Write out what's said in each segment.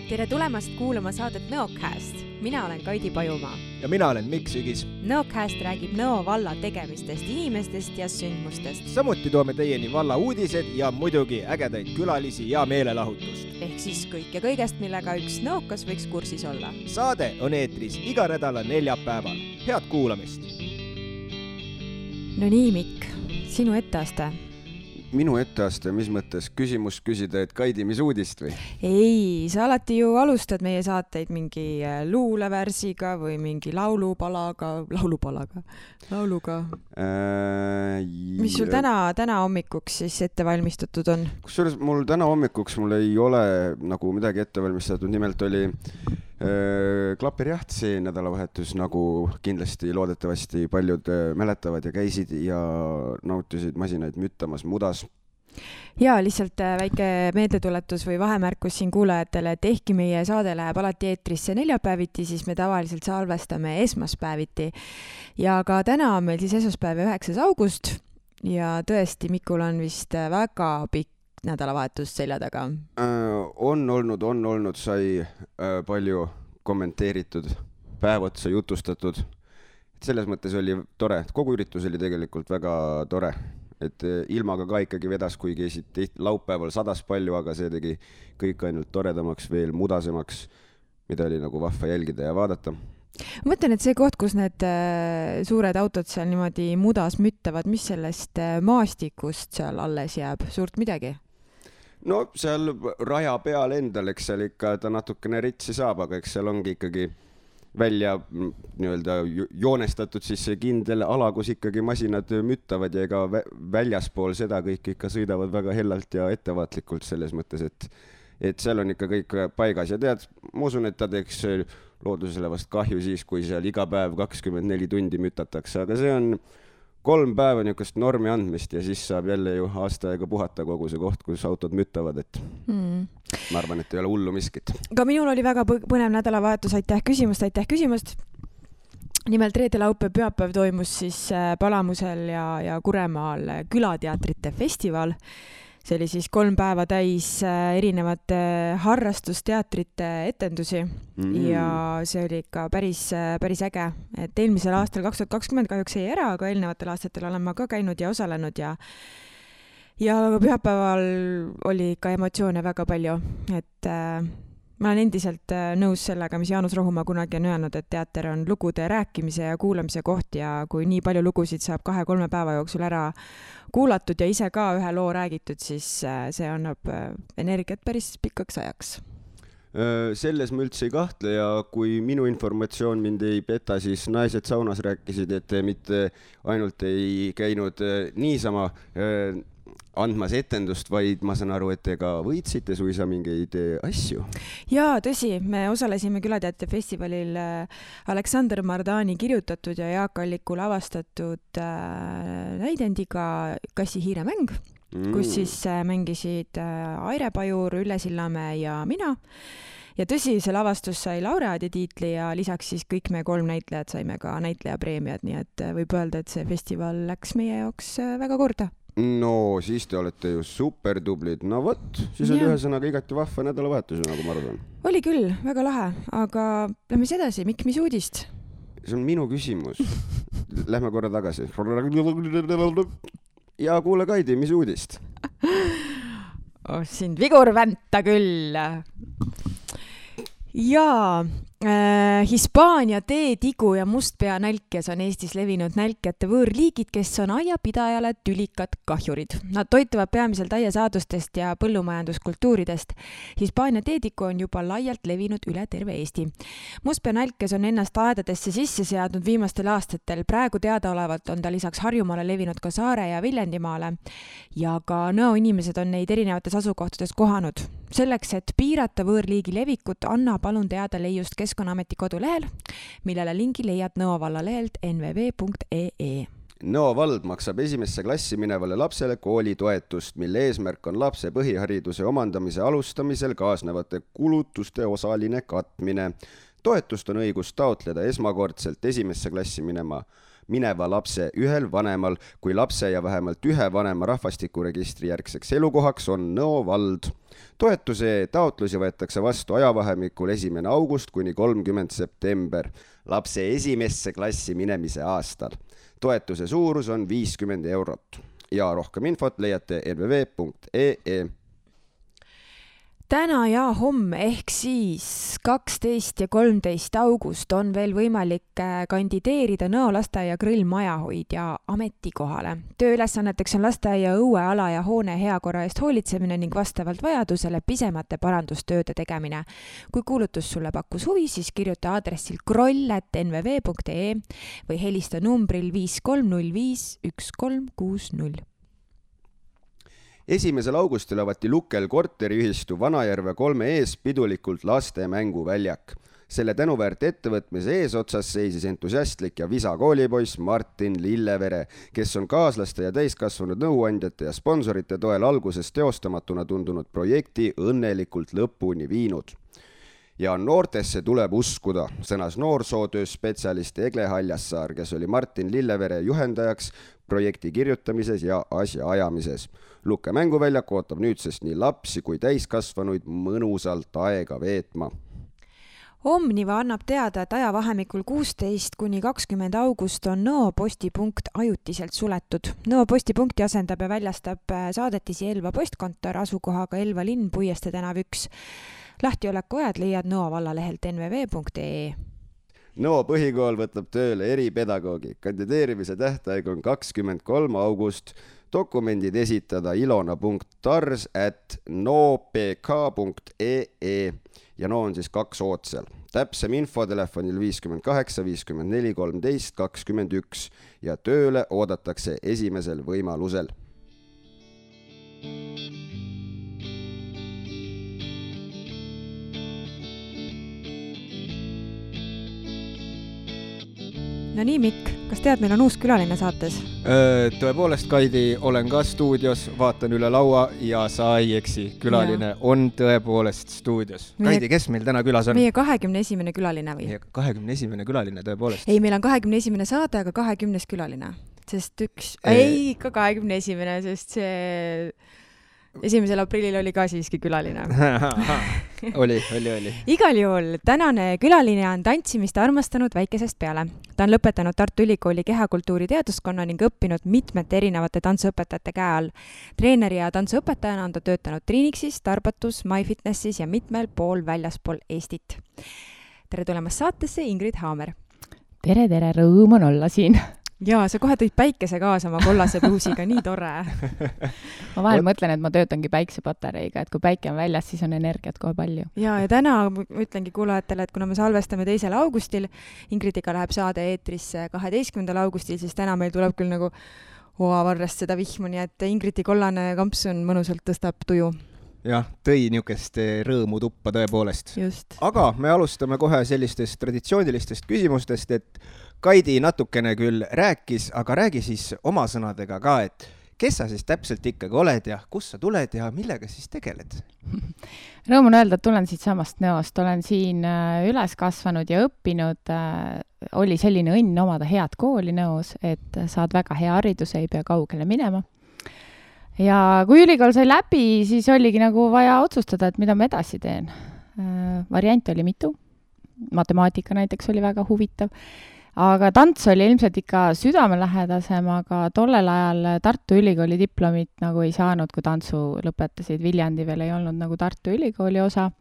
Tere tulemast kuulama saadet Nõocast. Mina olen Kaidi Pajumaa. Ja mina olen Mikk Sügis. Nõocast räägib Nõo valla tegemistest, inimestest ja sündmustest. Samuti toome teieni valla uudised ja muidugi ägedaid külalisi ja meelelahutust. Ehk siis kõik ja kõigest, millega üks nõokas võiks kursis olla. Saade on eetris iga nädala neljapäeval. Head kuulamist! No nii, Mikk, sinu etteaste. Minu etteaste, mis mõttes küsimust küsida, et Kaidi, mis uudist või? Ei, sa alati ju alustad meie saateid mingi luulevärsiga või mingi lauluga. Mis sul täna hommikuks siis ette valmistatud on? Kusjuures mul täna hommikuks mul ei ole nagu midagi ette valmistatud, nimelt oli klapirjaht see nädalavahetus, nagu kindlasti loodetavasti paljud mäletavad ja käisid ja nautisid masinaid müttamas mudas. Ja lihtsalt väike meeldetuletus või vahemärkus siin kuulajatele, et ehkki meie saade läheb alati eetrisse neljapäeviti, siis me tavaliselt salvestame esmaspäeviti. Ja ka täna on meil siis esmaspäev 9. august ja tõesti Mikul on vist väga pikk nädalavahetus selja taga. On olnud, sai palju kommenteeritud, päev otsa jutustatud. Selles mõttes oli tore, kogu üritus oli tegelikult väga tore, et ilmaga ka ikkagi vedas, kuigi laupäeval sadas palju, aga see tegi kõik ainult toredamaks, veel mudasemaks, mida oli nagu vahva jälgida ja vaadata. Ma mõtlen, et see koht, kus need suured autod seal niimoodi mudas müttavad, mis sellest maastikust seal alles jääb? Suurt midagi? No seal raja peal endal, eks seal ikka ta natukene ritsi saab, aga eks seal ongi ikkagi välja joonestatud siis see kindel ala, kus ikkagi masinad müttavad ja ega väljaspool seda kõik ikka sõidavad väga hellalt ja ettevaatlikult selles mõttes, et seal on ikka kõik paigas ja tead, ma usun, et ta teeks loodusele vast kahju siis, kui seal iga päev 24 tundi mütatakse, aga see on 3 päeva niisugust normi andmist ja siis saab jälle ju aasta aega puhata kogu see koht, kus autod müttavad, et ma arvan, et ei ole hullu miskit. Ka minul oli väga põnev nädalavahetus, aitäh küsimust. Nimelt reede, laupäev, pühapäev toimus siis Palamusel ja Kuremaal külateatrite festival. See oli siis 3 päeva täis erinevate harrastusteatrite etendusi ja see oli ikka päris äge. Et eelmisel aastal 2020 kahjuks ei ära, aga eelnevatel aastatel olen ma ka käinud ja osalenud ja pühapäeval oli ikka emotsioone väga palju. Et ma olen endiselt nõus sellega, mis Jaanus Rohumaa kunagi on öelnud, et teater on lugude rääkimise ja kuulamise koht ja kui nii palju lugusid saab 2-3 päeva jooksul ära kuulatud ja ise ka ühe loo räägitud, siis see annab energiat päris pikaks ajaks. Selles ma üldse ei kahtle ja kui minu informatsioon mind ei peta, siis naised saunas rääkisid, et mitte ainult ei käinud niisama andmas etendust, vaid ma saan aru, et te ka võitsite suisa mingeid asju. Jaa, tõsi, me osalesime külateatri festivalil Aleksander Mardani kirjutatud ja Jaak Alliku lavastatud näidendiga Kassi hiiremäng, kus siis mängisid Aire Pajur, Ülle Sillamäe ja mina. Ja tõsi, see lavastus sai laureaadi tiitli ja lisaks siis kõik me 3 näitlejad saime ka näitlejapreemiad, nii et võib öelda, et see festival läks meie jaoks väga korda. No, siis te olete ju super tublid. No võt, siis oli ühesõnaga igati vahva nädalavahetus, nagu ma arvan. Oli küll, väga lahe, aga lähme edasi. Mikk, mis uudist? See on minu küsimus. Lähme korra tagasi. Ja kuule, Kaidi, mis uudist? Sind vigur vänta küll. Jaa, Hispaania teetigu ja mustpeanälkjas on Eestis levinud nälkjate võõrliigid, kes on aiapidajale tülikad kahjurid. Nad toituvad peamiselt aiasaadustest ja põllumajanduskultuuridest. Hispaania teetigu on juba laialt levinud üle terve Eesti. Mustpeanälkjas on ennast aedadesse sisse seadnud viimastel aastatel. Praegu teadaolevalt on ta lisaks Harjumaale levinud ka Saare ja Viljandimaale ja ka Nõo inimesed on neid erinevates asukohtades kohanud. Selleks, et piirata võõrliigi levikut, anna palun teada leiust Keskkonnaameti kodulehel, millele lingi leiad Nõo valla lehelt nvv.ee. Nõo vald maksab 1. klassi minevale lapsele koolitoetust, mille eesmärk on lapse põhihariduse omandamise alustamisel kaasnevate kulutuste osaline katmine. Toetust on õigus taotleda esmakordselt 1. klassi minema mineva lapse ühel vanemal, kui lapse ja vähemalt ühe vanema rahvastikuregistri järgseks elukohaks on Nõo vald. Toetuse taotlusi võetakse vastu ajavahemikul 1. august kuni 30. september lapse esimesse klassi minemise aastal. Toetuse suurus on 50 eurot ja rohkem infot leiate nvv.ee. Täna ja homme ehk siis 12 ja 13 august on veel võimalik kandideerida Nõo lasteaia grillmajahoidja ametikohale. Tööülesanneteks on lasteaia õueala ja hoone heakorra eest hoolitsemine ning vastavalt vajadusele pisemate parandustööde tegemine. Kui kuulutus sulle pakkus huvi, siis kirjuta aadressil kroll@nvv.ee või helista numbril 5305 1360. 1. augustil avati Lukel korteriühistu Vanajärve 3 ees pidulikult laste mänguväljak. Selle tänuväärt ettevõtmise eesotsas seisis entusiastlik ja visa koolipoiss Martin Lillevere, kes on kaaslaste ja täiskasvanud nõuandjate ja sponsorite toel alguses teostamatuna tundunud projekti õnnelikult lõpuni viinud. Ja noortesse tuleb uskuda, sõnas noorsootööspetsialist Egle Haljassaar, kes oli Martin Lillevere juhendajaks projekti kirjutamises ja asja ajamises. Lukke mänguväljak ootab nüüdsest nii lapsi kui täiskasvanuid mõnusalt aega veetma. Omniva annab teada, et ajavahemikul 16 kuni 20 august on Nõo postipunkt ajutiselt suletud. Nõo postipunkti asendab ja väljastab saadetisi Elva postkontor asukohaga Elva linn, Puiestee tänav 1. Lahtioleku ajad leiad Nõo vallalehelt nvv.ee. Nõo põhikool võtab tööle eripedagoogi. Kandideerimise tähtaeg on 23. august. Dokumendid esitada ilona.tars@noopk.ee ja Nõo on siis 2 ootsel. Täpsem info telefonil 58 54 13 21 ja tööle oodatakse esimesel võimalusel. No nii, Mikk, kas tead, meil on uus külaline saates? Tõepoolest, Kaidi, olen ka stuudios, vaatan üle laua ja sa ei eksi. Külaline on tõepoolest stuudios. Kaidi, kes meil täna külas on? Meie 21. külaline või? 21. külaline, tõepoolest. Ei, meil on 21. saade, aga 20. külaline. Sest ei, ikka 21. Sest see 1. aprillil oli ka siiski külaline. Oli. Igal juhul, tänane külaline on tantsimist armastanud väikesest peale. Ta on lõpetanud Tartu Ülikooli kehakultuuri teaduskonna ning õppinud mitmete erinevate tantsuõpetajate käe all. Treeneri ja tantsuõpetajana on ta töötanud Triinixis, Tarbatus, MyFitnessis ja mitmel pool väljaspool Eestit. Tere tulemast saatesse, Ingrid Haamer. Tere, rõõm on olla siin. Jaa, sa kohe tõid päikese kaasa oma kollase pluusiga, nii tore. Ma vahel mõtlen, et ma töötangi päiksepatareiga, et kui päike on väljas, siis on energiat kohe palju. Ja täna ütlengi kuulajatele, et kuna me salvestame 2. augustil, Ingridiga läheb saade eetrisse 12. augustil, siis täna meil tuleb küll nagu varrest seda vihmu, nii et Ingridi kollane kampsun mõnusalt tõstab tuju. Jah, tõi niisugust rõõmu tuppa tõepoolest. Just. Aga me alustame kohe sellistest traditsioonilistest küsimustest, et Kaidi natukene küll rääkis, aga räägi siis oma sõnadega ka, et kes sa siis täpselt ikkagi oled ja kus sa tuled ja millega siis tegeled? Rõõm on öelda, et tulen siit samast Nõost, olen siin üles kasvanud ja õppinud. Oli selline õnn omada head kooli Nõos, et saad väga hea hariduse, ei pea kaugele minema. Ja kui ülikool sai läbi, siis oligi nagu vaja otsustada, et mida ma edasi teen. Variant oli mitu. Matemaatika näiteks oli väga huvitav. Aga tants oli ilmselt ikka südamelähedasem, aga tollel ajal Tartu Ülikooli diplomit nagu ei saanud, kui tantsu lõpetasid. Viljandi veel ei olnud nagu Tartu Ülikooli osa.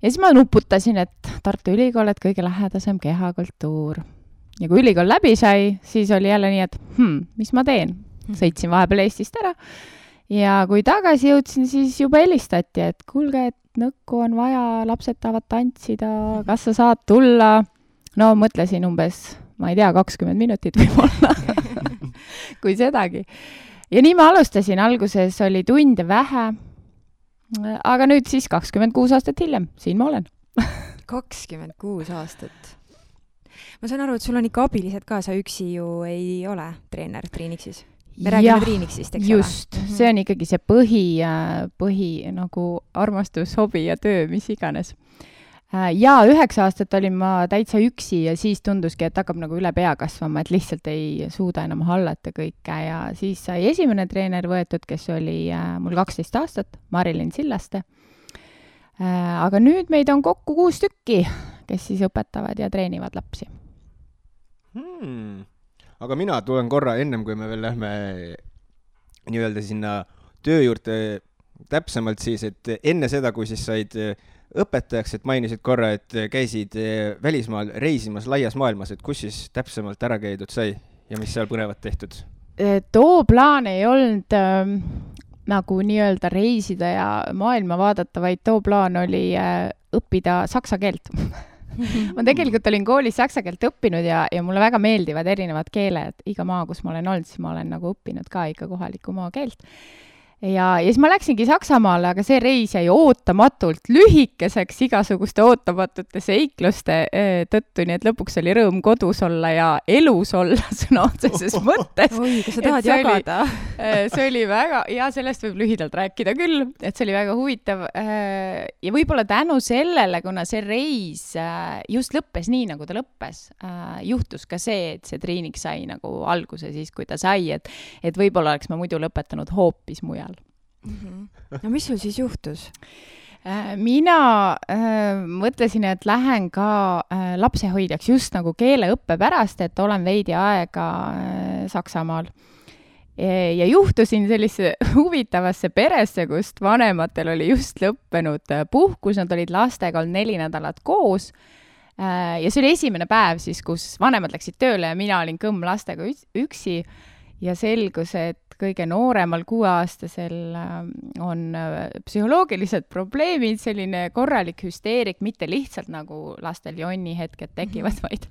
Ja siis ma nuputasin, et Tartu Ülikool, et kõige lähedasem kehakultuur. Ja kui ülikool läbi sai, siis oli jälle nii, et mis ma teen? Sõitsin vahepeal Eestist ära. Ja kui tagasi jõudsin, siis juba helistati, et kuulge, et nõkku on vaja, lapsed tahavad tantsida, kas sa saad tulla? No mõtlesin umbes, ma ei tea, 20 minutit võib-olla, kui sedagi. Ja nii ma alustasin, alguses oli tunde vähe, aga nüüd siis 26 aastat hiljem, siin ma olen. 26 aastat. Ma saan aru, et sul on ikka abilised ka, sa üksi ju ei ole treener Triinixis. Me räägime Triinixist, eks just, ole? See on ikkagi see põhi nagu armastus, hobi ja töö, mis iganes. Ja 9 aastat olin ma täitsa üksi ja siis tunduski, et hakkab nagu üle pea kasvama, et lihtsalt ei suuda enam hallata kõike ja siis sai esimene treener võetud, kes oli mul 12 aastat, Marilyn Sillaste. Aga nüüd meid on kokku 6 tükki, kes siis õpetavad ja treenivad lapsi. Aga mina tulen korra ennem, kui me veel lähme nii-öelda sinna töö juurde täpsemalt siis, et enne seda, kui siis said õpetajaks, et mainisid korra, et käisid välismaal reisimas laias maailmas, et kus siis täpsemalt ära käidud sai ja mis seal põnevat tehtud? Too plaan ei olnud nagu nii-öelda reisida ja maailma vaadata, vaid too plaan oli õppida saksa keelt. Ma tegelikult olin koolis saksa keelt õppinud ja mulle väga meeldivad erinevad keeled. Iga maa, kus ma olen olnud, siis ma olen nagu õppinud ka ikka kohaliku maa keelt. Ja siis ma läksingi Saksamaale, aga see reis jäi ootamatult lühikeseks igasuguste ootamatute seikluste tõttu, nii et lõpuks oli rõõm kodus olla ja elus olla sõna otseses mõttes. Oi, kas sa tahad jagada? See oli väga, ja sellest võib lühidalt rääkida küll, et see oli väga huvitav. Ja võib-olla tänu sellele, kuna see reis just lõppes nii, nagu ta lõppes, juhtus ka see, et see treening sai nagu alguse siis, kui ta sai, et võib-olla oleks ma muidu lõpetanud hoopis mujal. No mis sul siis juhtus? Mina mõtlesin, et lähen ka lapsehoidjaks just nagu keeleõppe pärast, et olen veidi aega Saksamaal. Ja juhtusin sellise huvitavasse peresse, kust vanematel oli just lõppenud puhkus, nad olid lastega olnud 4 nädalat koos. Ja see oli esimene päev siis, kus vanemad läksid tööle ja mina olin kõmm lastega üksi ja selgus, et kõige nooremal 6-aastasel on psühholoogilised probleemid, selline korralik hüsteerik, mitte lihtsalt nagu lastel jonni hetked tekivad, vaid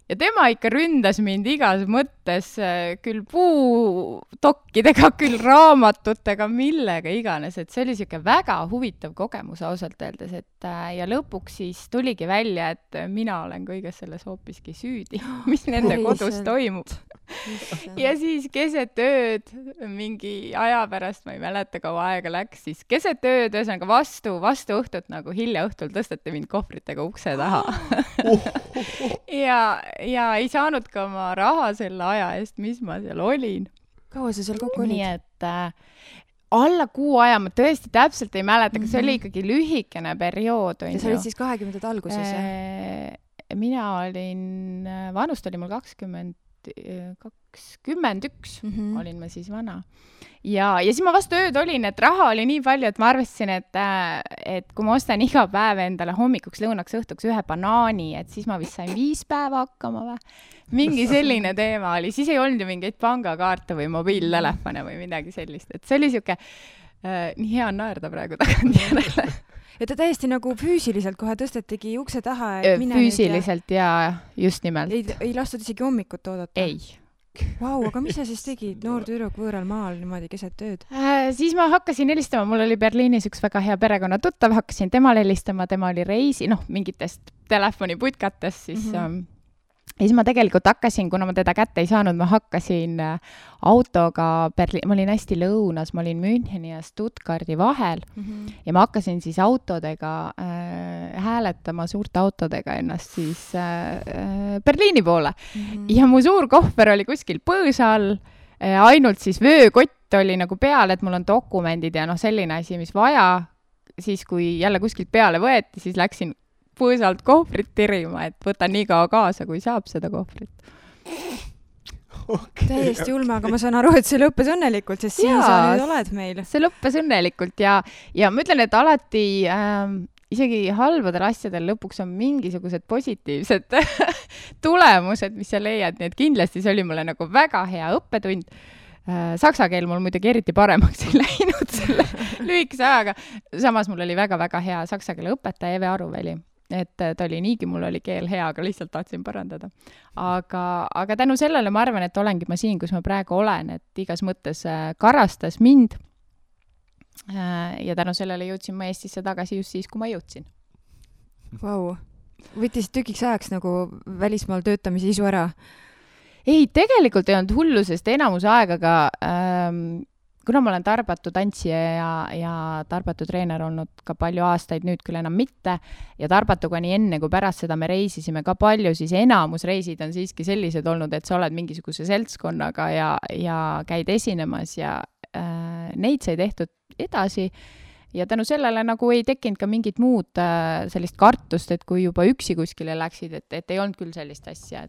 ja tema ikka ründas mind igas mõttes, küll puutokkidega, küll raamatutega, millega iganes, et see oli siuke väga huvitav kogemus ausalt öeldes, et ja lõpuks siis tuligi välja, et mina olen kõiges selles hoopiski süüdi, mis nende kodus toimub. Ja siis keset ööd, mingi aja pärast, ma ei mäleta, kaua aega läks, siis keset ööd, ühesõnaga vastu õhtut, nagu hilja õhtul tõsteti mind kohvritega ukse taha. ja ei saanud ka oma raha selle aja eest, mis ma seal olin. Kaua sa seal kokku olid? Nii et alla 6 aja, ma tõesti täpselt ei mäleta, aga see oli ikkagi lühikene periood. Ja sa olid siis 20. alguses? Mina olin, vanust oli mul 21 olin ma siis vana. Ja siis ma vastu ööd olin, et raha oli nii palju, et ma arvasin, et kui ma ostan iga päev endale hommikuks, lõunaks, õhtuks 1 banaani, et siis ma vist sain 5 päeva hakkama või. Mingi selline teema oli. Siis ei olnud ju mingeid pangakaarte või mobiiltelefone või midagi sellist. Et see oli siuke, nii hea naerda praegu tagant järele. Ja ta täiesti nagu füüsiliselt kohe tõstetigi ukse taha. Füüsiliselt ja just nimelt. Ei lastud isegi hommikut oodata? Ei. Vau, aga mis sa siis tegid noor tüdruk võõral maal niimoodi keset tööd? Siis ma hakkasin helistama, mul oli Berliinis üks väga hea perekonna tuttav, hakkasin temale helistama, tema oli reisi, mingitest telefoniputkatest, siis ja siis ma tegelikult hakkasin, kuna ma teda kätte ei saanud, ma hakkasin autoga ma olin hästi lõunas, ma olin Müncheni ja Stuttgardi vahel ja ma hakkasin siis autodega hääletama suurte autodega ennast siis Berliini poole. Ja mu suur kohver oli kuskil põõsa all, ainult siis vöökott oli nagu peal, et mul on dokumendid ja selline asi, mis vaja. Siis kui jälle kuskilt peale võeti, siis läksin põõsalt kohvrit tirima, et võtan nii kaua kaasa, kui saab seda kohvrit. Okay. Täiesti ulme, aga ma saan aru, et see lõppes õnnelikult, sest siin sa nüüd oled meil. See lõppes õnnelikult ja ma ütlen, et alati isegi halbadel asjadel lõpuks on mingisugused positiivsed tulemused, mis sa leiad, nii et kindlasti see oli mulle nagu väga hea õppetund. Saksa keel mul muidugi eriti paremaks ei läinud selle lühikese ajaga. Samas mul oli väga-väga hea saksa keele õpetaja Eve Aruväli. Et ta oli niigi, mul oli keel hea, aga lihtsalt tahtsin parandada. Aga tänu sellele ma arvan, et olengi ma siin, kus ma praegu olen, et igas mõttes karastas mind ja tänu sellele jõudsin ma Eestisse tagasi just siis, kui ma jõudsin. Vau, võttis tükiks ajaks nagu välismaal töötamise isu ära? Ei, tegelikult ei olnud hullu, sest enamuse aegaga kuna ma olen Tarbatu tantsija ja Tarbatu treener olnud ka palju aastaid, nüüd küll enam mitte, ja Tarbatuga nii enne kui pärast seda me reisisime ka palju, siis enamus reisid on siiski sellised olnud, et sa oled mingisuguse seltskonnaga ja käid esinemas ja neid sai tehtud edasi ja tänu sellele nagu ei tekkinud ka mingit muud sellist kartust, et kui juba üksi kuskile läksid, et ei olnud küll sellist asja,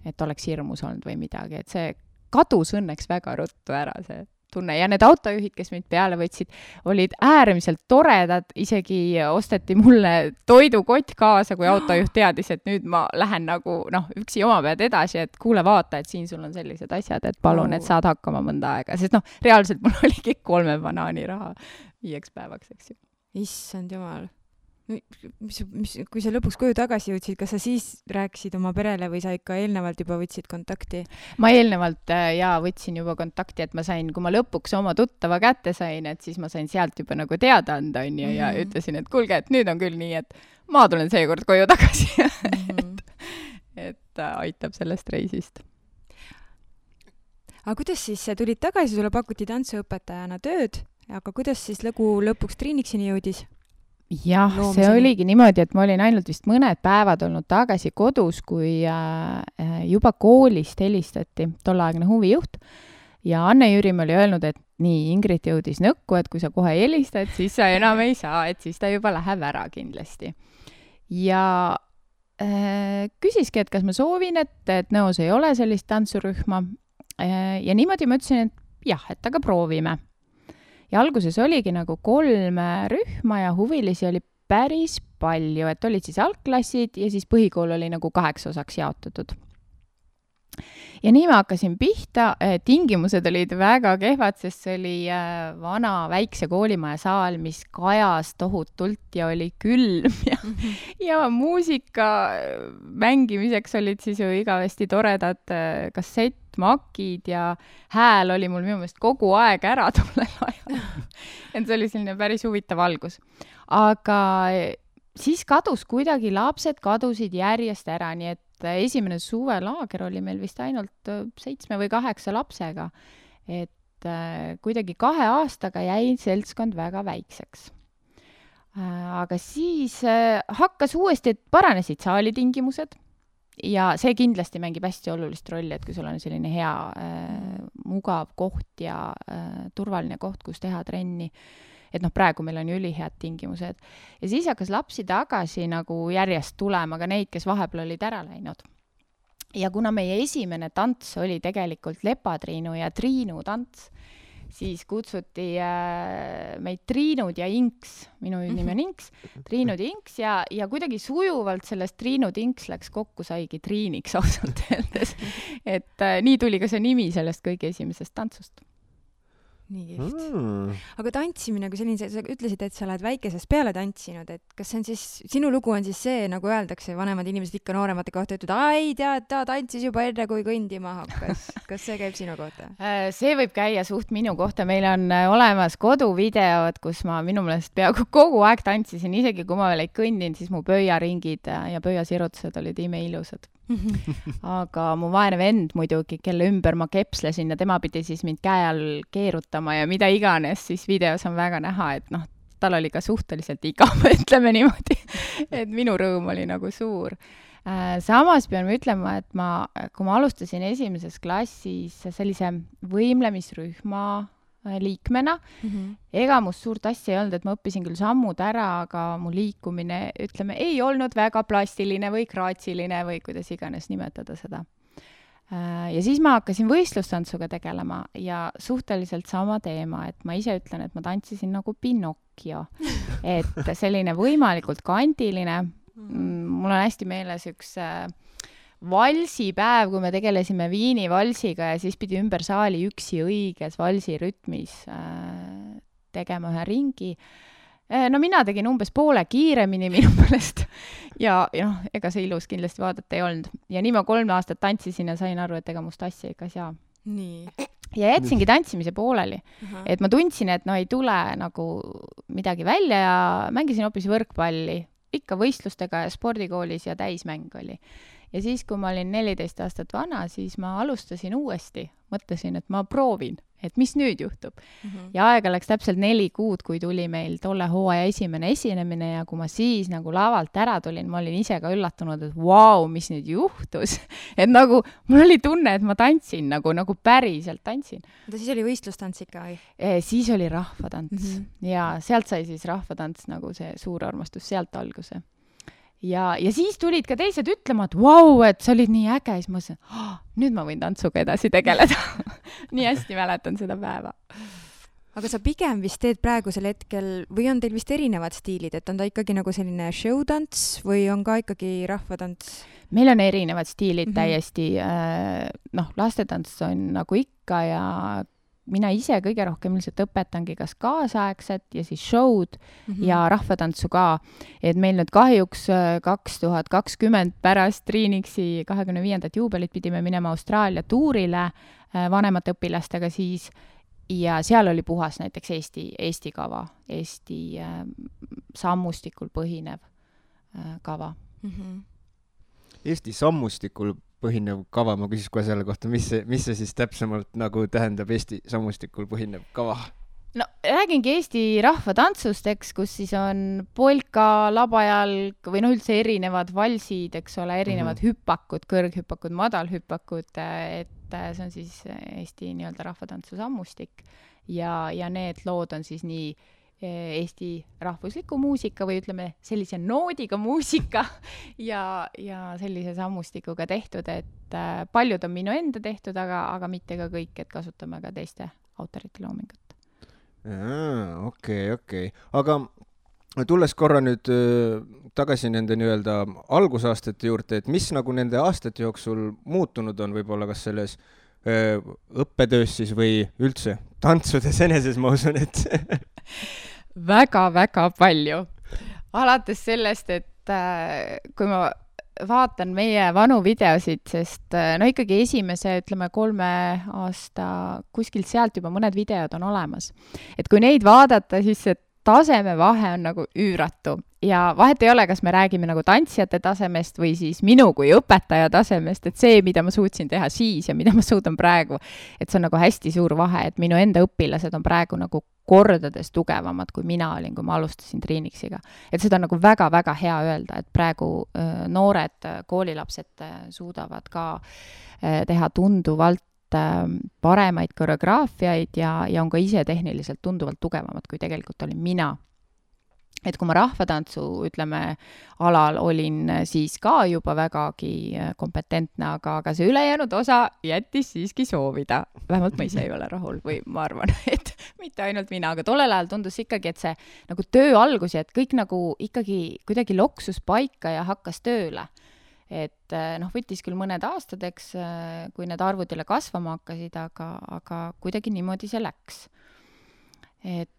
et oleks hirmus olnud või midagi, et see kadus õnneks väga ruttu ära see tunne ja need autojuhid, kes mind peale võtsid, olid äärmiselt toredad, isegi osteti mulle toidukott kaasa, kui autojuht teadis, et nüüd ma lähen nagu üksi oma pead edasi, et kuule vaata, et siin sul on sellised asjad, et palun, et saad hakkama mõnda aega, sest reaalselt mul oligi 3 banaani raha 5 päevaks, eks ju. Issand jumal. Kui sa lõpuks koju tagasi jõudsid, kas sa siis rääkisid oma perele või sa ikka eelnevalt juba võtsid kontakti? Ma eelnevalt võtsin juba kontakti, et ma sain, kui ma lõpuks oma tuttava kätte sain, et siis ma sain sealt juba nagu teada anda ja ütlesin, et kuulge, et nüüd on küll nii, et ma tulen seekord koju tagasi. et aitab sellest reisist. Aga kuidas siis tulid tagasi, sulle pakuti tantsuõpetajana tööd, aga kuidas siis lõpuks Triiniksini jõudis? Jah, see oligi niimoodi, et ma olin ainult vist mõned päevad olnud tagasi kodus, kui juba koolist helistati tolleaegne huvijuht ja Anne-Jüri oli öelnud, et nii, Ingrid jõudis nõkku, et kui sa kohe helistad, siis sa enam ei saa, et siis ta juba läheb ära kindlasti. Ja küsiski, et kas ma soovin, et Nõos ei ole sellist tantsurühma ja niimoodi ma ütlesin, et jah, et aga proovime. Ja alguses oligi nagu 3 rühma ja huvilisi oli päris palju, et olid siis algklassid ja siis põhikool oli nagu 8 osaks jaotatud. Ja nii ma hakkasin pihta, tingimused olid väga kehvad, sest see oli vana väikse koolimaja saal, mis kajas tohutult ja oli külm ja muusika mängimiseks olid siis ju igavesti toredad kassettmakid ja hääl oli mul minu meelest kogu aeg ära tollel ajal. Et see oli selline päris huvitav algus. Aga siis kadus kuidagi, lapsed kadusid järjest ära, nii et esimene suvelaager oli meil vist ainult 7 või 8 lapsega. Et kuidagi 2 aastaga jäi seltskond väga väikseks. Aga siis hakkas uuesti, et paranesid saalitingimused ja see kindlasti mängib hästi olulist rolli, et kui sul on selline hea, mugav koht ja turvaline koht, kus teha trenni. Et praegu meil on ju ülihead tingimused. Ja siis hakkas lapsi tagasi nagu järjest tulema, aga neid, kes vahepeal olid ära läinud. Ja kuna meie esimene tants oli tegelikult Lepatriinu ja Triinu tants, siis kutsuti meid Triinud ja Inks, minu nimi on Inks, Triinud ja Inks ja kuidagi sujuvalt sellest Triinud Inks läks kokku, saigi Triiniks ausalt öeldes. Et nii tuli ka see nimi sellest kõige esimesest tantsust. Nii kihvt. Aga tantsimine, kui selline, sa ütlesid, et sa oled väikesest peale tantsinud, et kas see on siis, sinu lugu on siis see, nagu öeldakse, vanemad inimesed ikka nooremate kohta ütlevad, ai, tead, ta tantsis juba enne, kui kõndima hakkas. Kas see käib sinu kohta? See võib käia suht minu kohta. Meil on olemas koduvideod, kus ma minu meelest peaaegu kogu aeg tantsisin, isegi kui ma veel ei kõndinud, siis mu pöiaringid ja pöiasirutused olid imeilusad. Aga mu vaene vend muidugi, kelle ümber ma kepslesin ja tema pidi siis mind käe all keerutama ja mida iganes, siis videos on väga näha, et tal oli ka suhteliselt igav, ütleme niimoodi, et minu rõõm oli nagu suur. Samas pean ütlema, et kui ma alustasin 1. klassis sellise võimlemisrühma liikmena, ega must suurt asja ei olnud, et ma õppisin küll sammud ära, aga mu liikumine, ütleme, ei olnud väga plastiline või graatsiline või kuidas iganes nimetada seda. Ja siis ma hakkasin võistlustantsuga tegelema ja suhteliselt sama teema, et ma ise ütlen, et ma tantsisin nagu Pinocchio, et selline võimalikult kandiline. Mul on hästi meeles üks valsipäev, kui me tegelesime Viini valsiga ja siis pidi ümber saali üksi õiges valsirütmis tegema ühe ringi. No mina tegin umbes poole kiiremini minu meelest ja ega see ilus kindlasti vaadata ei olnud. Ja nii ma 3 aastat tantsisin ja sain aru, et ega must asja ikka saa. Nii. Ja jätsingi tantsimise pooleli. Et ma tundsin, et ei tule nagu midagi välja ja mängisin hoopis võrkpalli. Ikka võistlustega ja spordikoolis ja täismäng oli. ja siis, kui ma olin 14 aastat vana, siis ma alustasin uuesti, mõtlesin, et ma proovin, et mis nüüd juhtub. Ja aega läks täpselt 4 kuud, kui tuli meil tolle hooaja esimene esinemine ja kui ma siis nagu lavalt ära tulin, ma olin ise ka üllatunud, et vau, mis nüüd juhtus. Et nagu, mul oli tunne, et ma tantsin nagu päriselt tantsin. Siis oli võistlustants ikka või? Siis oli rahvatants ja sealt sai siis rahvatants nagu see suur armastus, sealt alguse. Ja siis tulid ka teised ütlema, et vau, et sa olid nii äge, siis ma mõtlesin, nüüd ma võin tantsuga edasi tegeleda. Nii hästi mäletan seda päeva. Aga sa pigem vist teed praegusel hetkel, või on teil vist erinevad stiilid, et on ta ikkagi nagu selline showtants või on ka ikkagi rahvatants? Meil on erinevad stiilid täiesti, lastetants on nagu ikka ja mina ise kõige rohkem ilmselt õpetangi kas kaasaegset ja siis show'd ja rahvatantsu ka. Et meil nüüd kahjuks 2020 pärast Triinixi 25. juubelit pidime minema Austraalia tuurile vanemate õpilastega siis ja seal oli puhas näiteks Eesti kava, Eesti sammustikul põhinev kava. Eesti sammustikul põhinev kava, ma küsis kohe selle kohta, mis see siis täpsemalt nagu tähendab Eesti sammustikul põhinev kava? No räägingi Eesti rahvatantsust, eks, kus siis on polka, labajalg või üldse erinevad valsid, eks ole, erinevad hüppakud, kõrghüppakud, madalhüppakud, et see on siis Eesti nii-öelda rahvatantsu sammustik ja need lood on siis nii Eesti rahvusliku muusika või ütleme sellise noodiga muusika ja sellise sammustikuga tehtud, et paljud on minu enda tehtud, aga mitte ka kõik, et kasutame ka teiste autorite loomingut. Okei. Aga tulles korra nüüd tagasi nende nii-öelda algusaastate juurde, et mis nagu nende aastate jooksul muutunud on võib-olla kas selles õppetöös siis või üldse tantsudes eneses, ma usun, et väga-väga palju. Alates sellest, et kui ma vaatan meie vanu videosid, sest ikkagi esimese, 3 aasta kuskilt sealt juba mõned videod on olemas. Et kui neid vaadata, siis see tasemevahe on nagu üüratu. Ja vahet ei ole, kas me räägime nagu tantsijate tasemest või siis minu kui õpetaja tasemest, et see, mida ma suutsin teha siis ja mida ma suudan praegu, et see on nagu hästi suur vahe, et minu enda õpilased on praegu nagu kordades tugevamad, kui mina olin, kui ma alustasin Triinixiga. Et seda on nagu väga-väga hea öelda, et praegu noored koolilapsed suudavad ka teha tunduvalt paremaid koreograafiaid ja on ka ise tehniliselt tunduvalt tugevamad, kui tegelikult olin mina. Et kui ma rahvatantsu, alal olin siis ka juba vägagi kompetentne, aga see ülejäänud osa jättis siiski soovida. Vähemalt ma ise ei ole rahul või ma arvan, et mitte ainult mina, aga tollel ajal tundus ikkagi, et see nagu töö algus ja et kõik nagu ikkagi kuidagi loksus paika ja hakkas tööle. Et võttis küll mõned aastad, eks, kui need arvud jälle kasvama hakkasid, aga kuidagi niimoodi see läks. Et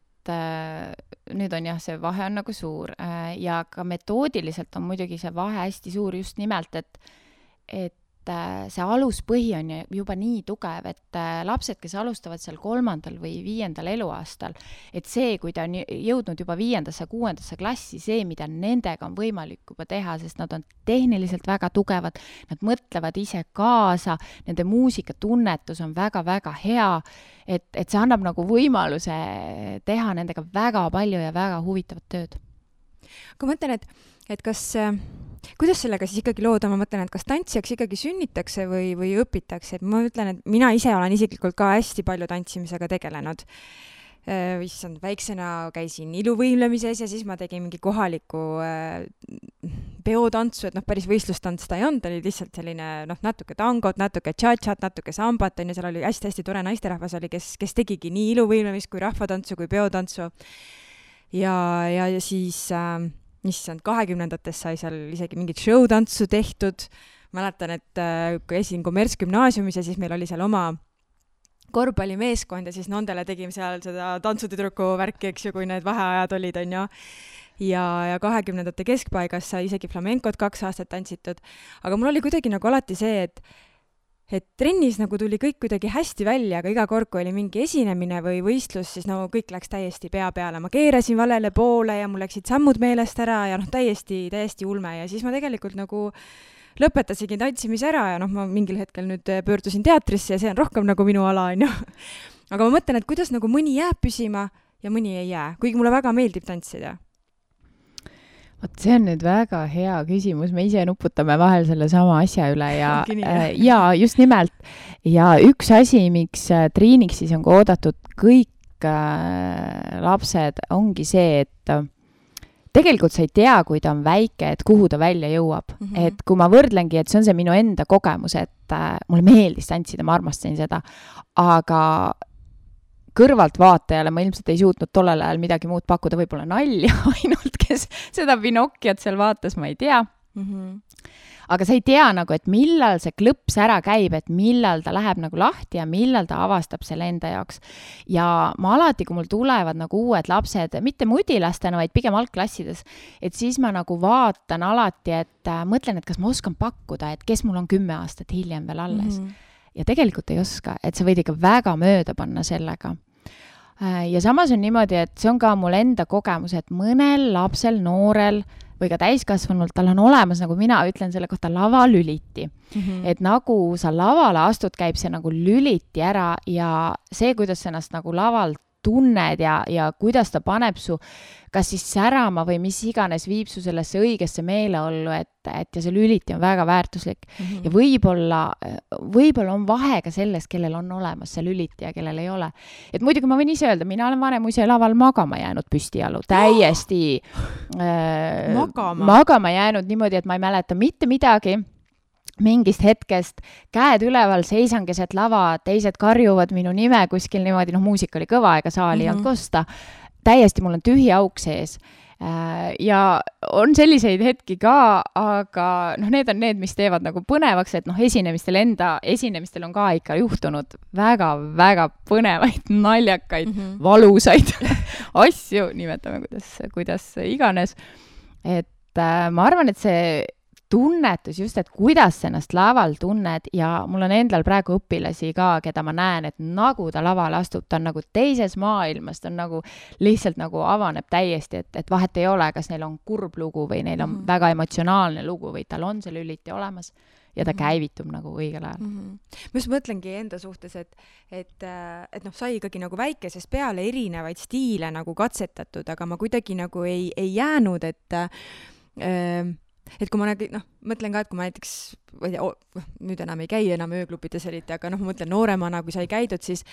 nüüd on jah, see vahe on nagu suur ja ka metoodiliselt on muidugi see vahe hästi suur just nimelt, et see aluspõhi on juba nii tugev, et lapsed, kes alustavad seal 3. või 5. eluaastal, et see, kui ta on jõudnud juba 5., 6. klassi, see, mida nendega on võimalik juba teha, sest nad on tehniliselt väga tugevad, nad mõtlevad ise kaasa, nende muusikatunnetus on väga-väga hea, et see annab nagu võimaluse teha nendega väga palju ja väga huvitavat tööd. Aga ma mõtlen, et kas kuidas sellega siis ikkagi lood on, ma mõtlen, et kas tantsijaks ikkagi sünnitakse või õpitakse, et ma ütlen, et mina ise olen isiklikult ka hästi palju tantsimisega tegelenud. Issand, väiksena käisin iluvõimlemises ja siis ma tegin mingi kohaliku peotantsu, et päris võistlustants ta ei olnud, oli lihtsalt selline natuke tangot, natuke tšatšat, natuke sambat, ja seal oli hästi-hästi tore naisterahvas oli, kes tegigi nii iluvõimlemist kui rahvatantsu kui peotantsu. Ja siis issand, 20-ndates sai seal isegi mingit showtantsu tehtud. Mäletan, et kui esin kommertsgümnaasiumis ja siis meil oli seal oma korvpallimeeskond ja siis nendele tegime seal seda tantsutüdruku värki, eks ju, kui need vaheajad olid, on ju. Ja 20-ndate keskpaigas sai isegi flamenkot 2 aastat tantsitud. Aga mul oli kuidagi nagu alati see, et trennis nagu tuli kõik kuidagi hästi välja, aga iga kord, kui oli mingi esinemine või võistlus, siis no kõik läks täiesti pea peale. Ma keerasin valele poole ja mul läksid sammud meelest ära ja noh, täiesti ulme ja siis ma tegelikult nagu lõpetasingi tantsimise ära ja noh, ma mingil hetkel nüüd pöördusin teatrisse ja see on rohkem nagu minu ala, on ju. Aga ma mõtlen, et kuidas nagu mõni jääb püsima ja mõni ei jää, kuigi mulle väga meeldib tantsida. Vot see on nüüd väga hea küsimus, me ise nuputame vahel selle sama asja üle ja just nimelt. Ja üks asi, miks Triiniks siis on ka oodatud kõik lapsed, ongi see, et tegelikult sa ei tea, kui ta on väike, et kuhu ta välja jõuab. Et kui ma võrdlengi, et see on see minu enda kogemus, et mulle meeldis tantsida, ma armastasin seda, aga kõrvalt vaatajale ma ilmselt ei suutnud tollel ajal midagi muud pakkuda, võib-olla nalja ainult, kes seda Pinokiat seal vaatas, ma ei tea. Aga sa ei tea nagu, et millal see klõps ära käib, et millal ta läheb nagu lahti ja millal ta avastab selle enda jaoks. Ja ma alati, kui mul tulevad nagu uued lapsed, mitte mudilastena, vaid pigem algklassides, et siis ma nagu vaatan alati, et mõtlen, et kas ma oskan pakkuda, et kes mul on 10 aastat hiljem veel alles. Ja tegelikult ei oska, et sa võid ikka väga mööda panna sellega. Ja samas on niimoodi, et see on ka mul enda kogemus, et mõnel lapsel, noorel või ka täiskasvanult, tal on olemas, nagu mina ütlen selle kohta, lavalüliti. Et nagu sa lavale astud, käib see nagu lüliti ära ja see, kuidas sa ennast nagu laval tunned ja kuidas ta paneb su kas siis särama või mis iganes viib su sellesse õigesse meeleollu, et ja see lüliti on väga väärtuslik. Ja võib-olla on vahe ka selles, kellel on olemas see lüliti ja kellel ei ole. Et muidugi ma võin ise öelda, mina olen vanem ise laval magama jäänud püstijalu, täiesti magama jäänud niimoodi, et ma ei mäleta mitte midagi. Mingist hetkest käed üleval, seisan keset lava, teised karjuvad minu nime kuskil niimoodi, muusika oli kõva, ega saali ei olnud kosta. Täiesti mul on tühi auk sees. Ja on selliseid hetki ka, aga need on need, mis teevad nagu põnevaks, et esinemistel on ka ikka juhtunud väga põnevaid, naljakaid, valusaid asju, nimetame kuidas iganes. Et ma arvan, et see tunnetus just, et kuidas ennast laval tunned ja mul on endal praegu õpilasi ka, keda ma näen, et nagu ta lavale astub, ta on nagu teises maailmas, ta on nagu lihtsalt nagu avaneb täiesti, et vahet ei ole, kas neil on kurb lugu või neil on väga emotsionaalne lugu või tal on see lüliti olemas ja ta käivitub nagu õigel ajal. Ma just mõtlengi enda suhtes, et sai ikkagi nagu väikesest peale erinevaid stiile nagu katsetatud, aga ma kuidagi nagu ei jäänud, et kui ma mõtlen ka, et kui ma näiteks, nüüd enam ei käi enam ööklubides eriti, aga ma mõtlen nooremana, kui sai käidud, siis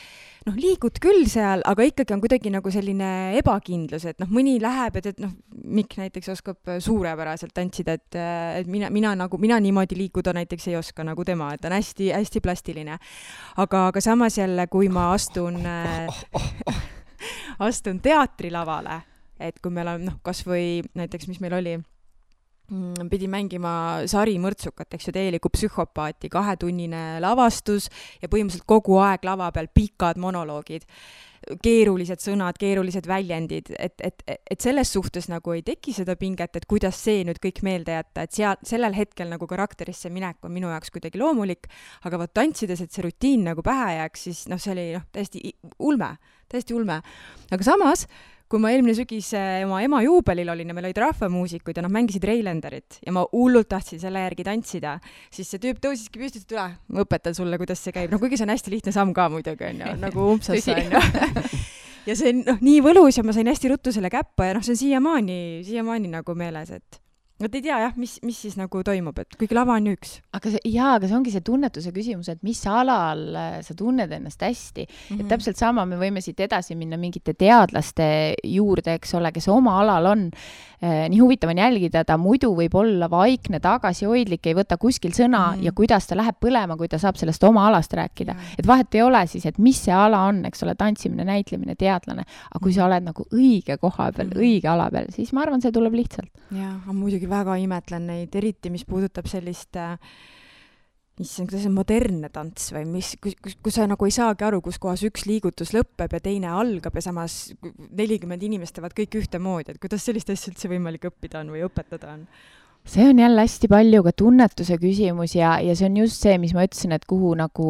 liigud küll seal, aga ikkagi on kuidagi nagu selline ebakindlus, et mõni läheb, et Mikk näiteks oskab suurepäraselt tantsida, et mina niimoodi liikuda näiteks ei oska nagu tema, et on hästi plastiline. Aga samas jälle, kui ma astun teatrilavale, et kui meil on kas või näiteks, mis meil oli, pidi mängima Sari Mõrtsukat, eks ju, täielikku psühhopaati, 2-tunnine lavastus ja põhimõtteliselt kogu aeg lava peal pikad monoloogid, keerulised sõnad, keerulised väljendid, et selles suhtes nagu ei teki seda pinget, et kuidas see nüüd kõik meelde jätta, et sellel hetkel nagu karakterisse minek on minu jaoks kuidagi loomulik, aga võt tantsides, et see rutiin nagu pähe jääks, siis see oli täiesti ulme. Aga samas, kui ma eelmine sügis oma ema juubelil olin ja meil olid rahvamuusikuid ja mängisid Reilenderit ja ma hullult tahtsin selle järgi tantsida, siis see tüüp tõusiski püsti, et ma õpetan sulle, kuidas see käib. Kuigi see on hästi lihtne samm ka muidugi, on ju, nagu umpsasse, on ju. Ja see on nii võlus ja ma sain hästi ruttu selle käppa ja see on siiamaani nagu meeles, et ei tea jah, mis siis nagu toimub, et kuigi lava on üks. Aga see ongi see tunnetuse küsimus, et mis alal sa tunned ennast hästi. Et täpselt sama me võime siit edasi minna mingite teadlaste juurde, eks ole, kes oma alal on. Nii huvitav on jälgida, ta muidu võib olla vaikne, tagasihoidlik, ei võta kuskil sõna ja kuidas ta läheb põlema, kui ta saab sellest oma alast rääkida. Et vahet ei ole siis, et mis see ala on, eks ole, tantsimine, näitlemine, teadlane. Aga kui sa oled nagu õige koha peal, õige ala peal, siis ma arvan, see tuleb lihtsalt. Ja, muidugi väga imetlen neid, eriti mis puudutab sellist kuidas on modernne tants või kus sa nagu ei saagi aru, kus kohas üks liigutus lõpeb ja teine algab ja samas 40 inimest teevad kõik ühtemoodi, et kuidas sellist asja üldse võimalik õppida on või õpetada on? see on jälle hästi palju ka tunnetuse küsimus ja see on just see, mis ma ütlesin, et kuhu nagu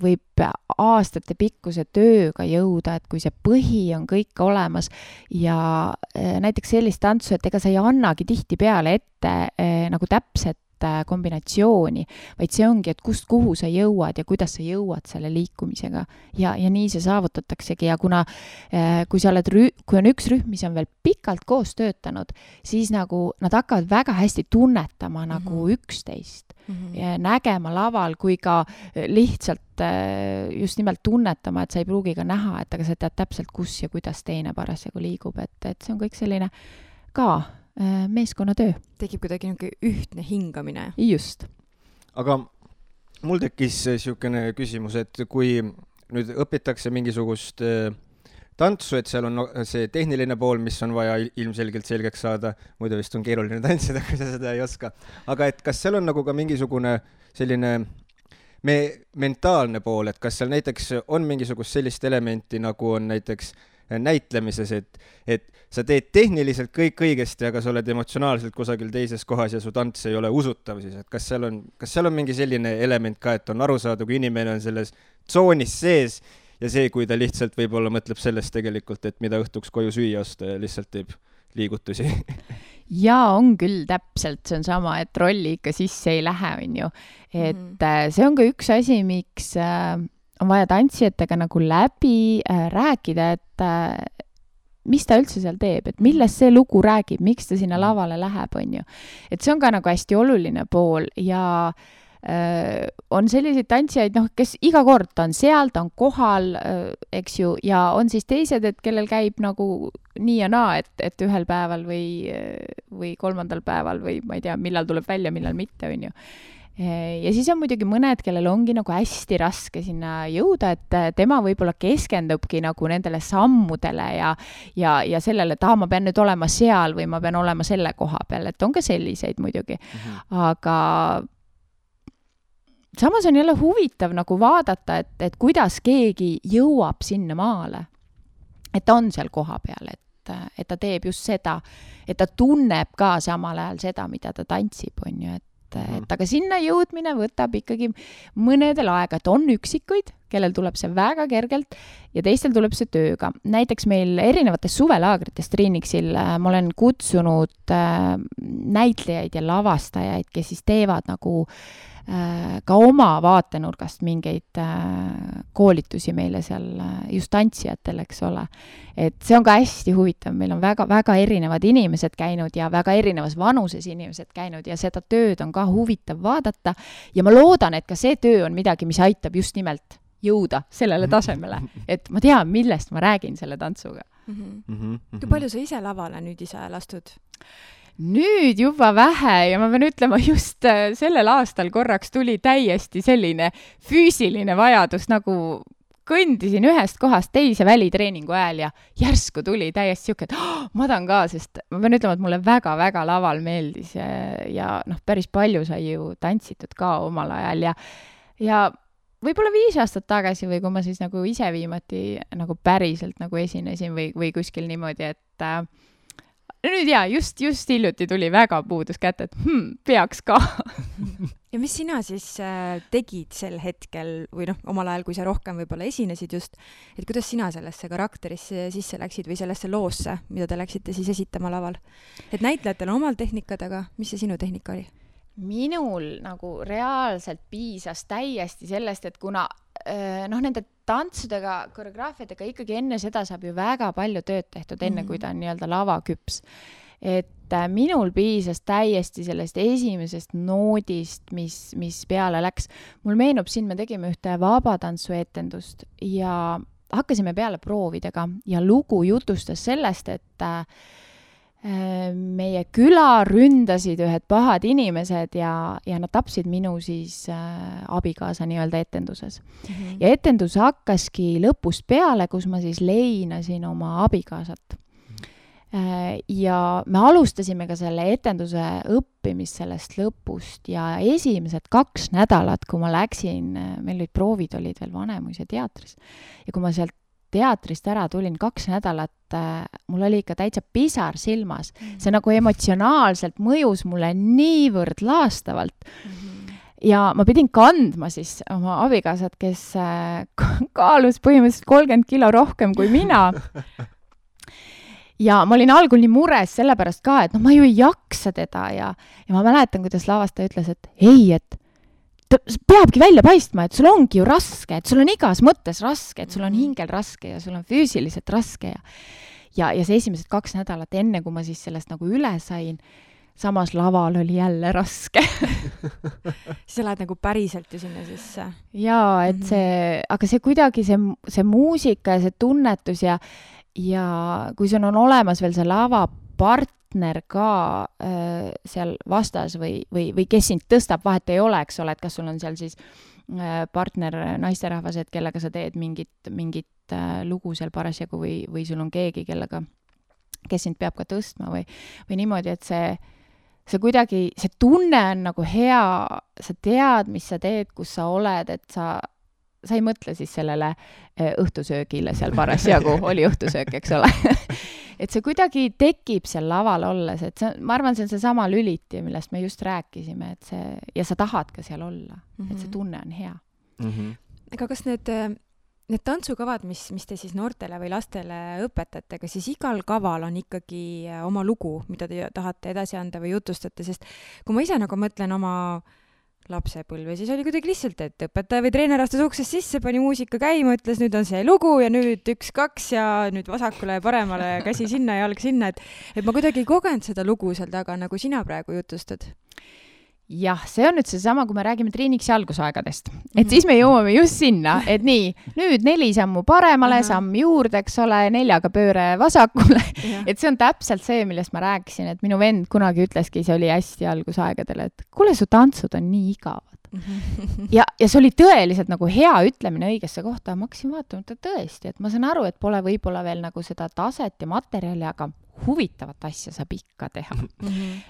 võib aastate pikkuse tööga jõuda, et kui see põhi on kõik olemas ja näiteks sellist tantsu, et ega sa ei annagi tihtipeale ette nagu täpset kombinatsiooni, vaid see ongi, et kust kuhu sa jõuad ja kuidas sa jõuad selle liikumisega ja nii see saavutataksegi ja kuna kui on üks rühm, mis on veel pikalt koos töötanud, siis nagu nad hakkavad väga hästi tunnetama nagu üksteist ja nägema laval kui ka lihtsalt just nimelt tunnetama, et sa ei pruugi ka näha, et aga sa tead täpselt, kus ja kuidas teine parasjagu liigub, et see on kõik selline ka meeskonnatöö. Tekib kuidagi ühtne hingamine. Just. Aga mul tekkis niisugune küsimus, et kui nüüd õpitakse mingisugust tantsu, et seal on see tehniline pool, mis on vaja ilmselgelt selgeks saada, muidu vist on keeruline tantsida, kui sa seda ei oska. Aga et kas seal on nagu ka mingisugune selline mentaalne pool, et kas seal näiteks on mingisugust sellist elementi, nagu on näiteks näitlemises, et sa teed tehniliselt kõik õigesti, aga sa oled emotsionaalselt kusagil teises kohas ja su tants ei ole usutav siis, et kas seal on mingi selline element ka, et on aru saada, kui inimene on selles tsoonis sees ja see, kui ta lihtsalt võib-olla mõtleb sellest tegelikult, et mida õhtuks koju süüa osta ja lihtsalt teeb liigutusi. Ja on küll täpselt, see on sama, et rolli ikka sisse ei lähe, on ju. Et see on ka üks asi, miks on vaja tantsijatega nagu läbi rääkida, et mis ta üldse seal teeb, et millest see lugu räägib, miks ta sinna lavale läheb, on ju. Et see on ka nagu hästi oluline pool ja on selliseid tantsijaid, kes iga kord ta on seal, ta on kohal, eks ju, ja on siis teised, et kellel käib nagu nii ja naa, et ühel päeval või kolmandal päeval või ma ei tea, millal tuleb välja, millal mitte, on ju. Ja siis on muidugi mõned, kellel ongi nagu hästi raske sinna jõuda, et tema võib-olla keskendubki nagu nendele sammudele ja sellele, et ma pean nüüd olema seal või ma pean olema selle koha peal, et on ka selliseid muidugi. Aga samas on jälle huvitav nagu vaadata, et kuidas keegi jõuab sinna maale, et ta on seal koha peal, et ta teeb just seda, et ta tunneb ka samal ajal seda, mida ta tantsib, on ju, aga sinna jõudmine võtab ikkagi mõnedel aega, et on üksikuid, kellel tuleb see väga kergelt ja teistel tuleb see tööga. Näiteks meil erinevates suvelaagrites Triinixil ma olen kutsunud näitlejaid ja lavastajaid, kes siis teevad nagu ka oma vaatenurgast mingeid koolitusi meile seal just tantsijatel, eks ole. Et see on ka hästi huvitav, meil on väga erinevad inimesed käinud ja väga erinevas vanuses inimesed käinud ja seda tööd on ka huvitav vaadata ja ma loodan, et ka see töö on midagi, mis aitab just nimelt jõuda sellele tasemele, et ma tean, millest ma räägin selle tantsuga. Kui palju sa ise lavale nüüd ise lastud? Nüüd juba vähe ja ma pean ütlema, just sellel aastal korraks tuli täiesti selline füüsiline vajadus, nagu kõndisin ühest kohast teise välitreeningu ajal ja järsku tuli täiesti siuke, et ma tahan ka, sest ma pean ütlema, et mulle väga laval meeldis ja päris palju sai ju tantsitud ka omal ajal ja võib-olla 5 aastat tagasi või kui ma siis nagu ise viimati nagu päriselt nagu esinesin või kuskil niimoodi, et nüüd just hiljuti tuli väga puudus kätte, et peaks ka. Ja mis sina siis tegid sel hetkel või omal ajal, kui sa rohkem võib-olla esinesid just, et kuidas sina sellesse karakterisse sisse läksid või sellesse loosse, mida te läksite siis esitama laval? Et näitlejatel on omal tehnikad, aga mis see sinu tehnika oli? Minul nagu reaalselt piisas täiesti sellest, et kuna nende tantsudega, koreograafiadega ikkagi enne seda saab ju väga palju tööd tehtud, enne kui ta on nii-öelda lavaküps. Et minul piisas täiesti sellest esimesest noodist, mis peale läks. Mul meenub siin, me tegime ühte vabatantsuetendust ja hakkasime peale proovidega ja lugu jutustas sellest, et meie küla ründasid ühed pahad inimesed ja nad tapsid minu siis abikaasa nii-öelda etenduses. Ja etendus hakkaski lõpust peale, kus ma siis leinasin oma abikaasat. Ja me alustasime ka selle etenduse õppimist sellest lõpust ja esimesed 2 nädalat, kui ma läksin, meil olid proovid, olid veel Vanemuise teatris ja kui ma sealt teatrist ära tulin, 2 nädalat mul oli ikka täitsa pisar silmas. See nagu emotsionaalselt mõjus mulle niivõrd laastavalt. Ja ma pidin kandma siis oma abikaasat, kes kaalus põhimõtteliselt 30 kilo rohkem kui mina. Ja ma olin algul nii mures sellepärast ka, et ma ju ei jaksa teda ja ma mäletan, kuidas lavastaja ütles, et ei, et ta peabki välja paistma, et sul ongi ju raske, et sul on igas mõttes raske, et sul on hingel raske ja sul on füüsiliselt raske ja see esimesed 2 nädalat enne, kui ma siis sellest nagu üle sain, samas laval oli jälle raske. Siis sa lähed nagu päriselt ju sinna sisse. Jaa, et aga see kuidagi see muusika ja see tunnetus ja kui sul on olemas veel see lavapartner ka seal vastas või kes sind tõstab, vahet ei ole, eks ole, et kas sul on seal siis partner naisterahvas, et kellega sa teed mingit lugu seal parasjagu või sul on keegi, kes sind peab ka tõstma või niimoodi, et see kuidagi, see tunne on nagu hea, sa tead, mis sa teed, kus sa oled, et sa ei mõtle siis sellele õhtusöögile seal parasjagu, oli õhtusöök, eks ole. Et see kuidagi tekib seal laval olles, et ma arvan, see on see sama lüliti, millest me just rääkisime, et ja sa tahad ka seal olla, et see tunne on hea. Aga kas need tantsukavad, mis te siis noortele või lastele õpetate, aga siis igal kaval on ikkagi oma lugu, mida te tahate edasi anda või jutustate, sest kui ma ise nagu mõtlen oma lapsepõlve, siis oli kuidagi lihtsalt, et õpetaja või treener astus uksest sisse, pani muusika käima, ütles, nüüd on see lugu ja nüüd 1, 2 ja nüüd vasakule ja paremale käsi sinna ja jalg sinna, et ma kuidagi ei kogenud seda lugu seal taga, nagu sina praegu jutustad. Jah, see on nüüd seesama, kui me räägime treeniks algusaegadest. Et siis me jõuame just sinna, et nii, nüüd 4 sammu paremale, samm juurde, eks ole, 4 pööre vasakule. Et see on täpselt see, millest ma rääkisin, et minu vend kunagi ütleski, see oli hästi algusaegadel, et kuule, su tantsud on nii igavad. Ja see oli tõeliselt nagu hea ütlemine õigesse kohta, ma hakkasin vaatama, et tõesti, et ma saan aru, et pole võib-olla veel nagu seda taset ja materjali, aga huvitavat asja saab ikka teha.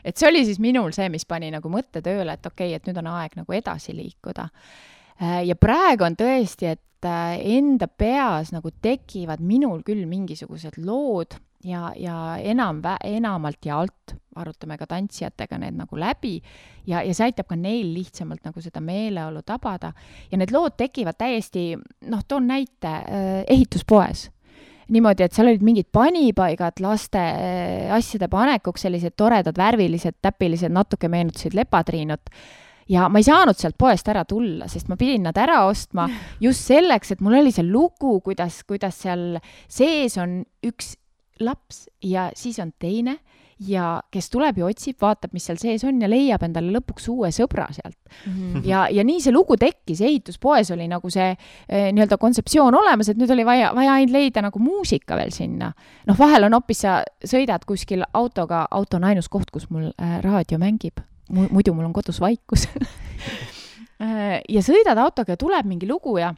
Et see oli siis minul see, mis pani nagu mõtte tööle, et okei, et nüüd on aeg nagu edasi liikuda. Ja praegu on tõesti, et enda peas nagu tekivad minul küll mingisugused lood ja enamalt ja alt arutame ka tantsijatega need nagu läbi ja see aitab ka neil lihtsamalt nagu seda meeleolu tabada. Ja need lood tekivad täiesti, toon näite, ehituspoes. Niimoodi, et seal olid mingid panipaigad laste asjade panekuks, sellised toredad, värvilised, täpilised, natuke meenutasid lepatriinut. Ja ma ei saanud sealt poest ära tulla, sest ma pidin nad ära ostma just selleks, et mul oli see lugu, kuidas seal sees on üks laps ja siis on teine ja kes tuleb ja otsib, vaatab, mis seal sees on ja leiab endale lõpuks uue sõbra sealt. Ja nii see lugu tekkis, ehituspoes oli nagu see nii-öelda kontseptsioon olemas, et nüüd oli vaja ainult leida nagu muusika veel sinna. Vahel on hoopis sa sõidad kuskil autoga, auto on ainus koht, kus mul raadio mängib. Muidu mul on kodus vaikus. Ja sõidad autoga ja tuleb mingi lugu ja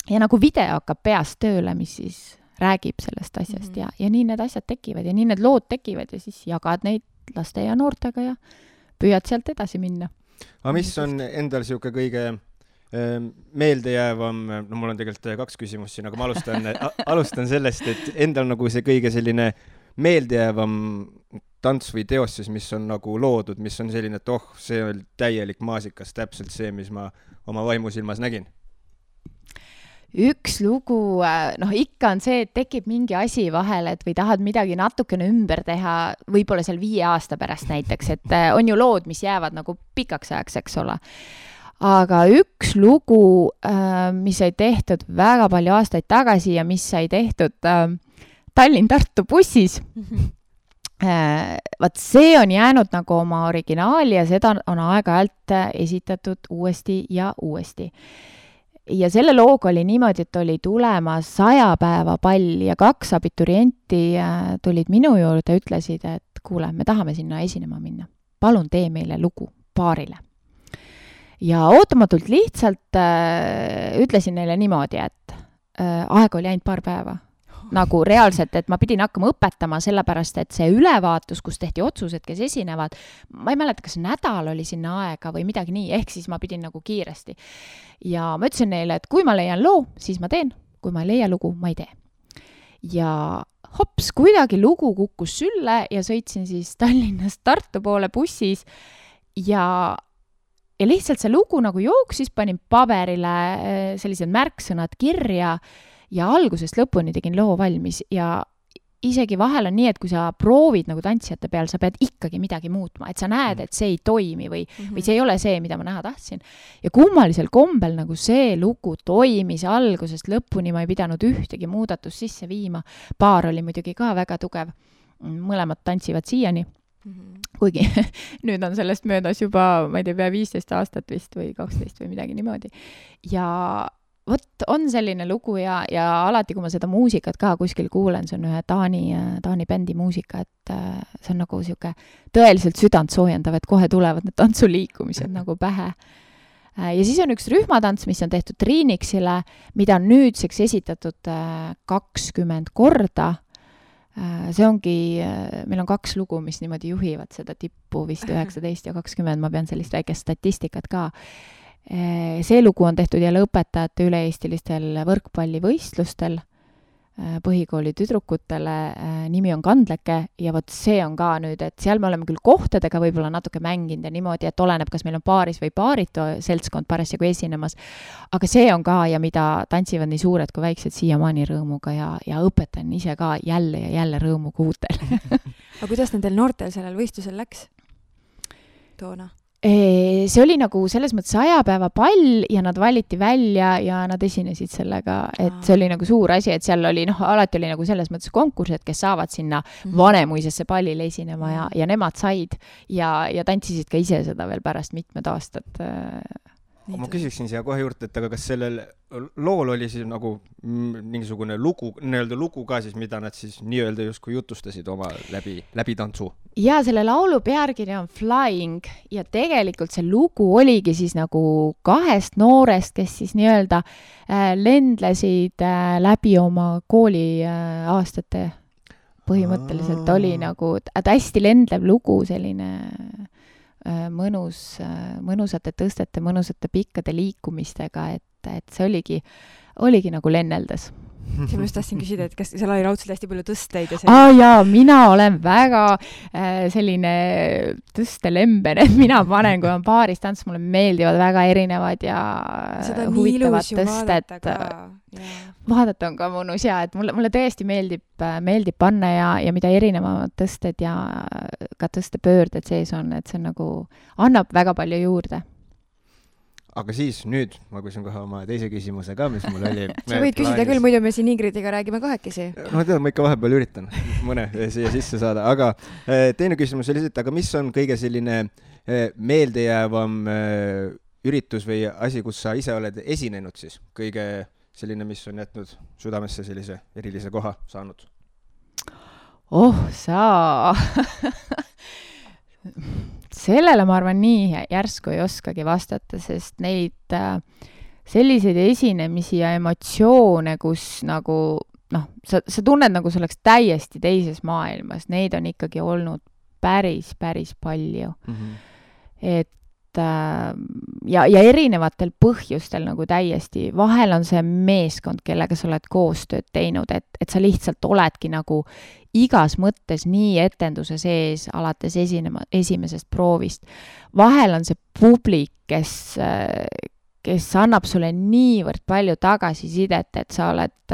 nagu video hakkab peast tööle, mis siis räägib sellest asjast ja nii need asjad tekivad ja nii need lood tekivad ja siis jagad neid laste ja noortega ja püüad sealt edasi minna. Aga mis on endal siuke kõige meeldejäävam, mul on tegelikult 2 küsimust siin, aga ma alustan sellest, et endal nagu see kõige selline meeldejäävam tants või teos siis, mis on nagu loodud, mis on selline, et see on täielik maasikas, täpselt see, mis ma oma vaimusilmas nägin. Üks lugu, ikka on see, et tekib mingi asi vahele, et või tahad midagi natukene ümber teha, võib-olla seal 5 aasta pärast näiteks, et on ju lood, mis jäävad nagu pikaks ajaks, eks ole. Aga üks lugu, mis sai tehtud väga palju aastaid tagasi ja mis sai tehtud Tallinn-Tartu bussis, vaat see on jäänud nagu oma originaali ja seda on aeg-ajalt esitatud uuesti ja uuesti. Ja selle looga oli niimoodi, et oli tulemas 100 päeva pall ja 2 abiturienti tulid minu juurde ja ütlesid, et kuule, me tahame sinna esinema minna. Palun tee meile lugu paarile. Ja ootamatult lihtsalt ütlesin neile niimoodi, et aega oli ainult 2 päeva. Nagu reaalselt, et ma pidin hakkama õpetama sellepärast, et see ülevaatus, kus tehti otsused, kes esinevad, ma ei mäleta, kas nädal oli sinna aega või midagi nii, ehk siis ma pidin nagu kiiresti. Ja ma ütlesin neile, et kui ma leian loo, siis ma teen, kui ma ei leia lugu, ma ei tee. Ja hops, kuidagi lugu kukkus sülle ja sõitsin siis Tallinnast Tartu poole bussis ja lihtsalt see lugu nagu jooksis, panin paberile sellised märksõnad kirja ja algusest lõpuni tegin loo valmis ja isegi vahel on nii, et kui sa proovid nagu tantsijate peal, sa pead ikkagi midagi muutma, et sa näed, et see ei toimi või see ei ole see, mida ma näha tahtsin. Ja kummalisel kombel nagu see lugu toimis algusest lõpuni, ma ei pidanud ühtegi muudatust sisse viima. Paar oli muidugi ka väga tugev. Mõlemad tantsivad siiani. Kuigi nüüd on sellest möödas juba, ma ei tea, pea 15 aastat vist või 12 või midagi niimoodi. Ja vot on selline lugu ja alati, kui ma seda muusikat ka kuskil kuulen, see on ühe Taani bändi muusika, et see on nagu siuke tõeliselt südant soojendav, et kohe tulevad need tantsuliikumised nagu pähe. Ja siis on üks rühmatants, mis on tehtud Triinixile, mida on nüüdseks esitatud 20 korda. See ongi, meil on 2 lugu, mis niimoodi juhivad seda tippu vist 19 ja 20, ma pean sellist väikest statistikat ka. See lugu on tehtud jälle õpetajate üle-eestilistel võrkpallivõistlustel põhikooli tüdrukutele, nimi on Kandleke ja vot see on ka nüüd, et seal me oleme küll kohtadega võib-olla natuke mänginud ja niimoodi, et oleneb, kas meil on paaris või paaritu seltskond parasjagu esinemas, aga see on ka ja mida tantsivad nii suured kui väiksed siiamaani rõõmuga ja õpetan ise ka jälle ja jälle rõõmuga uutel. Aga kuidas nendel noortel sellel võistlusel läks toona? See oli nagu selles mõttes 100 päeva pall ja nad valiti välja ja nad esinesid sellega, et see oli nagu suur asi, et seal oli, alati oli nagu selles mõttes konkurss, et kes saavad sinna Vanemuisesse pallile esinema ja nemad said ja tantsisid ka ise seda veel pärast mitmed aastad. Ma küsiksin siia kohe juurde, et aga kas sellel lool oli siis nagu mingisugune lugu, nii-öelda lugu ka siis, mida nad siis nii-öelda justkui jutustasid oma läbi tantsu? Ja selle laulu pealkiri on Flying ja tegelikult see lugu oligi siis nagu 2 noorest, kes siis nii-öelda lendlesid läbi oma kooli aastate. Põhimõtteliselt oli nagu hästi lendlev lugu, selline mõnusate tõstete, mõnusate pikkade liikumistega, et see oligi nagu lenneldes. See ma just tahtsin küsida, et kas seal oli raudselt hästi palju tõsteid ja jaa, mina olen väga selline tõstelemben, et mina panen, kui on paaris tants, mulle meeldivad väga erinevad ja huvitavad tõsted. Vaadata on ka mõnus ja, et mulle tõesti meeldib panna ja mida erinevamad tõsted ja ka tõstepöörded sees on, et see nagu annab väga palju juurde. Aga siis nüüd ma küsin kohe oma teise küsimuse ka, mis mul oli. Sa võid küsida küll, muidu me siin Ingridiga räägime kahekesi. No tead, ma ikka vahepeal üritan mõne siia sisse saada, aga teine küsimus oli, et aga mis on kõige selline meeldejäävam üritus või asi, kus sa ise oled esinenud siis? Kõige selline, mis on jätnud südamesse sellise erilise koha saanud? Sellele ma arvan nii järsku ei oskagi vastata, sest neid selliseid esinemisi ja emotsioone, kus nagu, sa tunned nagu see oleks täiesti teises maailmas, neid on ikkagi olnud päris palju. Et ja erinevatel põhjustel nagu täiesti, vahel on see meeskond, kellega sa oled koostööd teinud, et sa lihtsalt oledki nagu igas mõttes nii etenduse sees alates esimesest proovist. Vahel on see publik, kes annab sulle niivõrd palju tagasisidet, et sa oled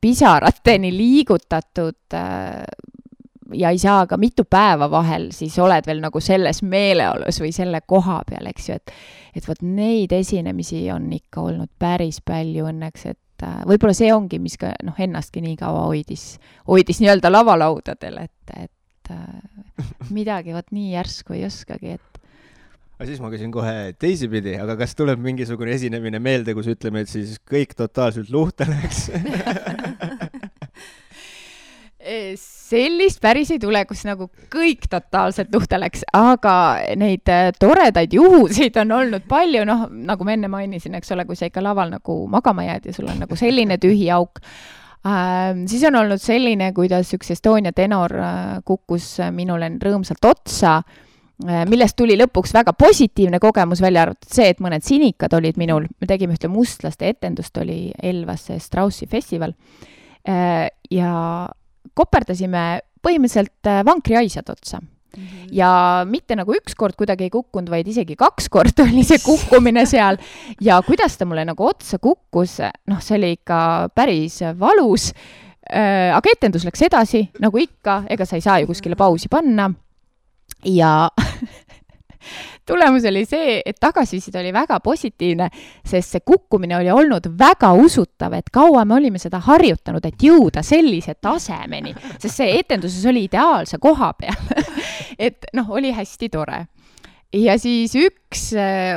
pisarateni liigutatud ja ei saa ka mitu päeva vahel, siis oled veel nagu selles meeleolus või selle koha peal, eks ju, et võt neid esinemisi on ikka olnud päris palju õnneks, et võib-olla see ongi, mis ka ennastki nii kaua hoidis nii-öelda lavalaudadel, et midagi võt nii järsku ei oskagi, et aga siis ma küsin kohe teisipidi, aga kas tuleb mingisugune esinemine meelde, kus ütleme, et siis kõik totaalselt luhta läks? Sellist päris ei tule, kus nagu kõik totaalselt luhta läks, aga neid toredaid juhuseid on olnud palju, nagu ma enne mainisin, eks ole, kui sa ikka laval nagu magama jääd ja sul on nagu selline tühi auk. Siis on olnud selline, kuidas üks Estonia tenor kukkus minule rõõmsalt otsa, millest tuli lõpuks väga positiivne kogemus, välja arvatud see, et mõned sinikad olid minul. Me tegime ühte mustlaste etendust, oli Elvas Straussi festival. ja koperdasime põhimõtteliselt vankriaisad otsa. Ja mitte nagu üks kord kuidagi ei kukkunud, vaid isegi 2 korda oli see kukkumine seal ja kuidas ta mulle nagu otsa kukkus, see oli ikka päris valus, aga etendus läks edasi, nagu ikka, ega sa ei saa ju kuskile pausi panna ja tulemus oli see, et tagasiside oli väga positiivne, sest see kukkumine oli olnud väga usutav, et kaua me olime seda harjutanud, et jõuda sellise tasemeni, sest see etenduses oli ideaalse koha peal. Et oli hästi tore. Ja siis üks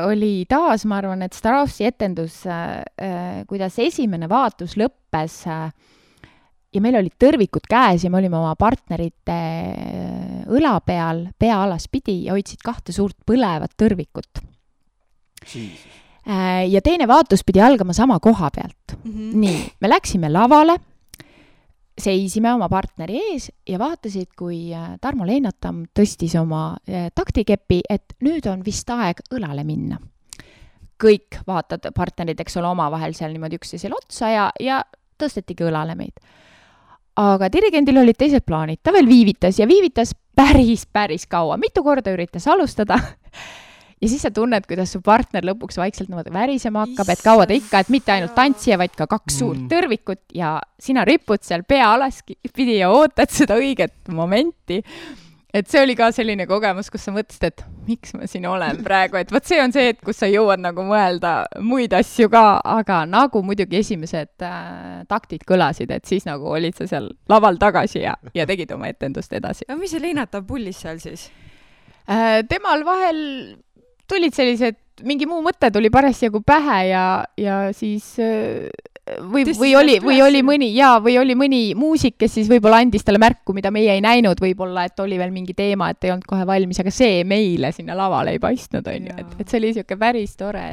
oli taas, ma arvan, et Starossi etendus, kuidas esimene vaatus lõppes ja meil olid tõrvikud käes ja me olime oma partnerite õla peal, pea alas pidi ja hoidsid 2 suurt põlevat tõrvikut. Ja teine vaatus pidi algama sama koha pealt. Nii, me läksime lavale, seisime oma partneri ees ja vaatasid, kui Tarmo Leinatam tõstis oma taktikepi, et nüüd on vist aeg õlale minna. Kõik vaatad partnerid, eks ole, oma vahel seal niimoodi üksteisele otsa ja tõstetigi õlale meid. Aga dirigendil olid teised plaanid, ta veel viivitas ja viivitas päris kaua, mitu korda üritas alustada ja siis sa tunned, kuidas su partner lõpuks vaikselt värisema hakkab, et kaua ta ikka, et mitte ainult tantsija, vaid ka 2 suurt tõrvikut ja sina ripud seal pea alas pidi ja ootad seda õiget momenti. Et see oli ka selline kogemus, kus sa mõtlesid, et miks ma siin olen praegu, et võt see on see, et kus sa jõuad nagu mõelda muid asju ka, aga nagu muidugi esimesed taktid kõlasid, et siis nagu olid sa seal laval tagasi ja tegid oma etendust edasi. Ja mis see Leinatab pullis seal siis? Temal vahel tulid sellised, mingi muu mõte tuli parasjagu pähe ja siis või oli mõni muusik, kes siis võib-olla andis talle märku, mida meie ei näinud, võib-olla, et oli veel mingi teema, et ei olnud kohe valmis, aga see meile sinna lavale ei paistnud, on ju, et see oli siuke päris tore,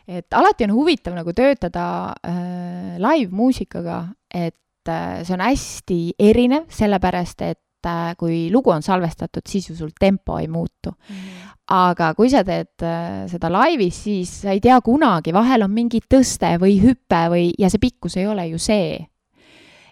et alati on huvitav nagu töötada live-muusikaga, et see on hästi erinev, sellepärast, et kui lugu on salvestatud, siis ju sul tempo ei muutu. Aga kui sa teed seda laivis, siis sa ei tea kunagi, vahel on mingi tõste või hüppe ja see pikkus ei ole ju see.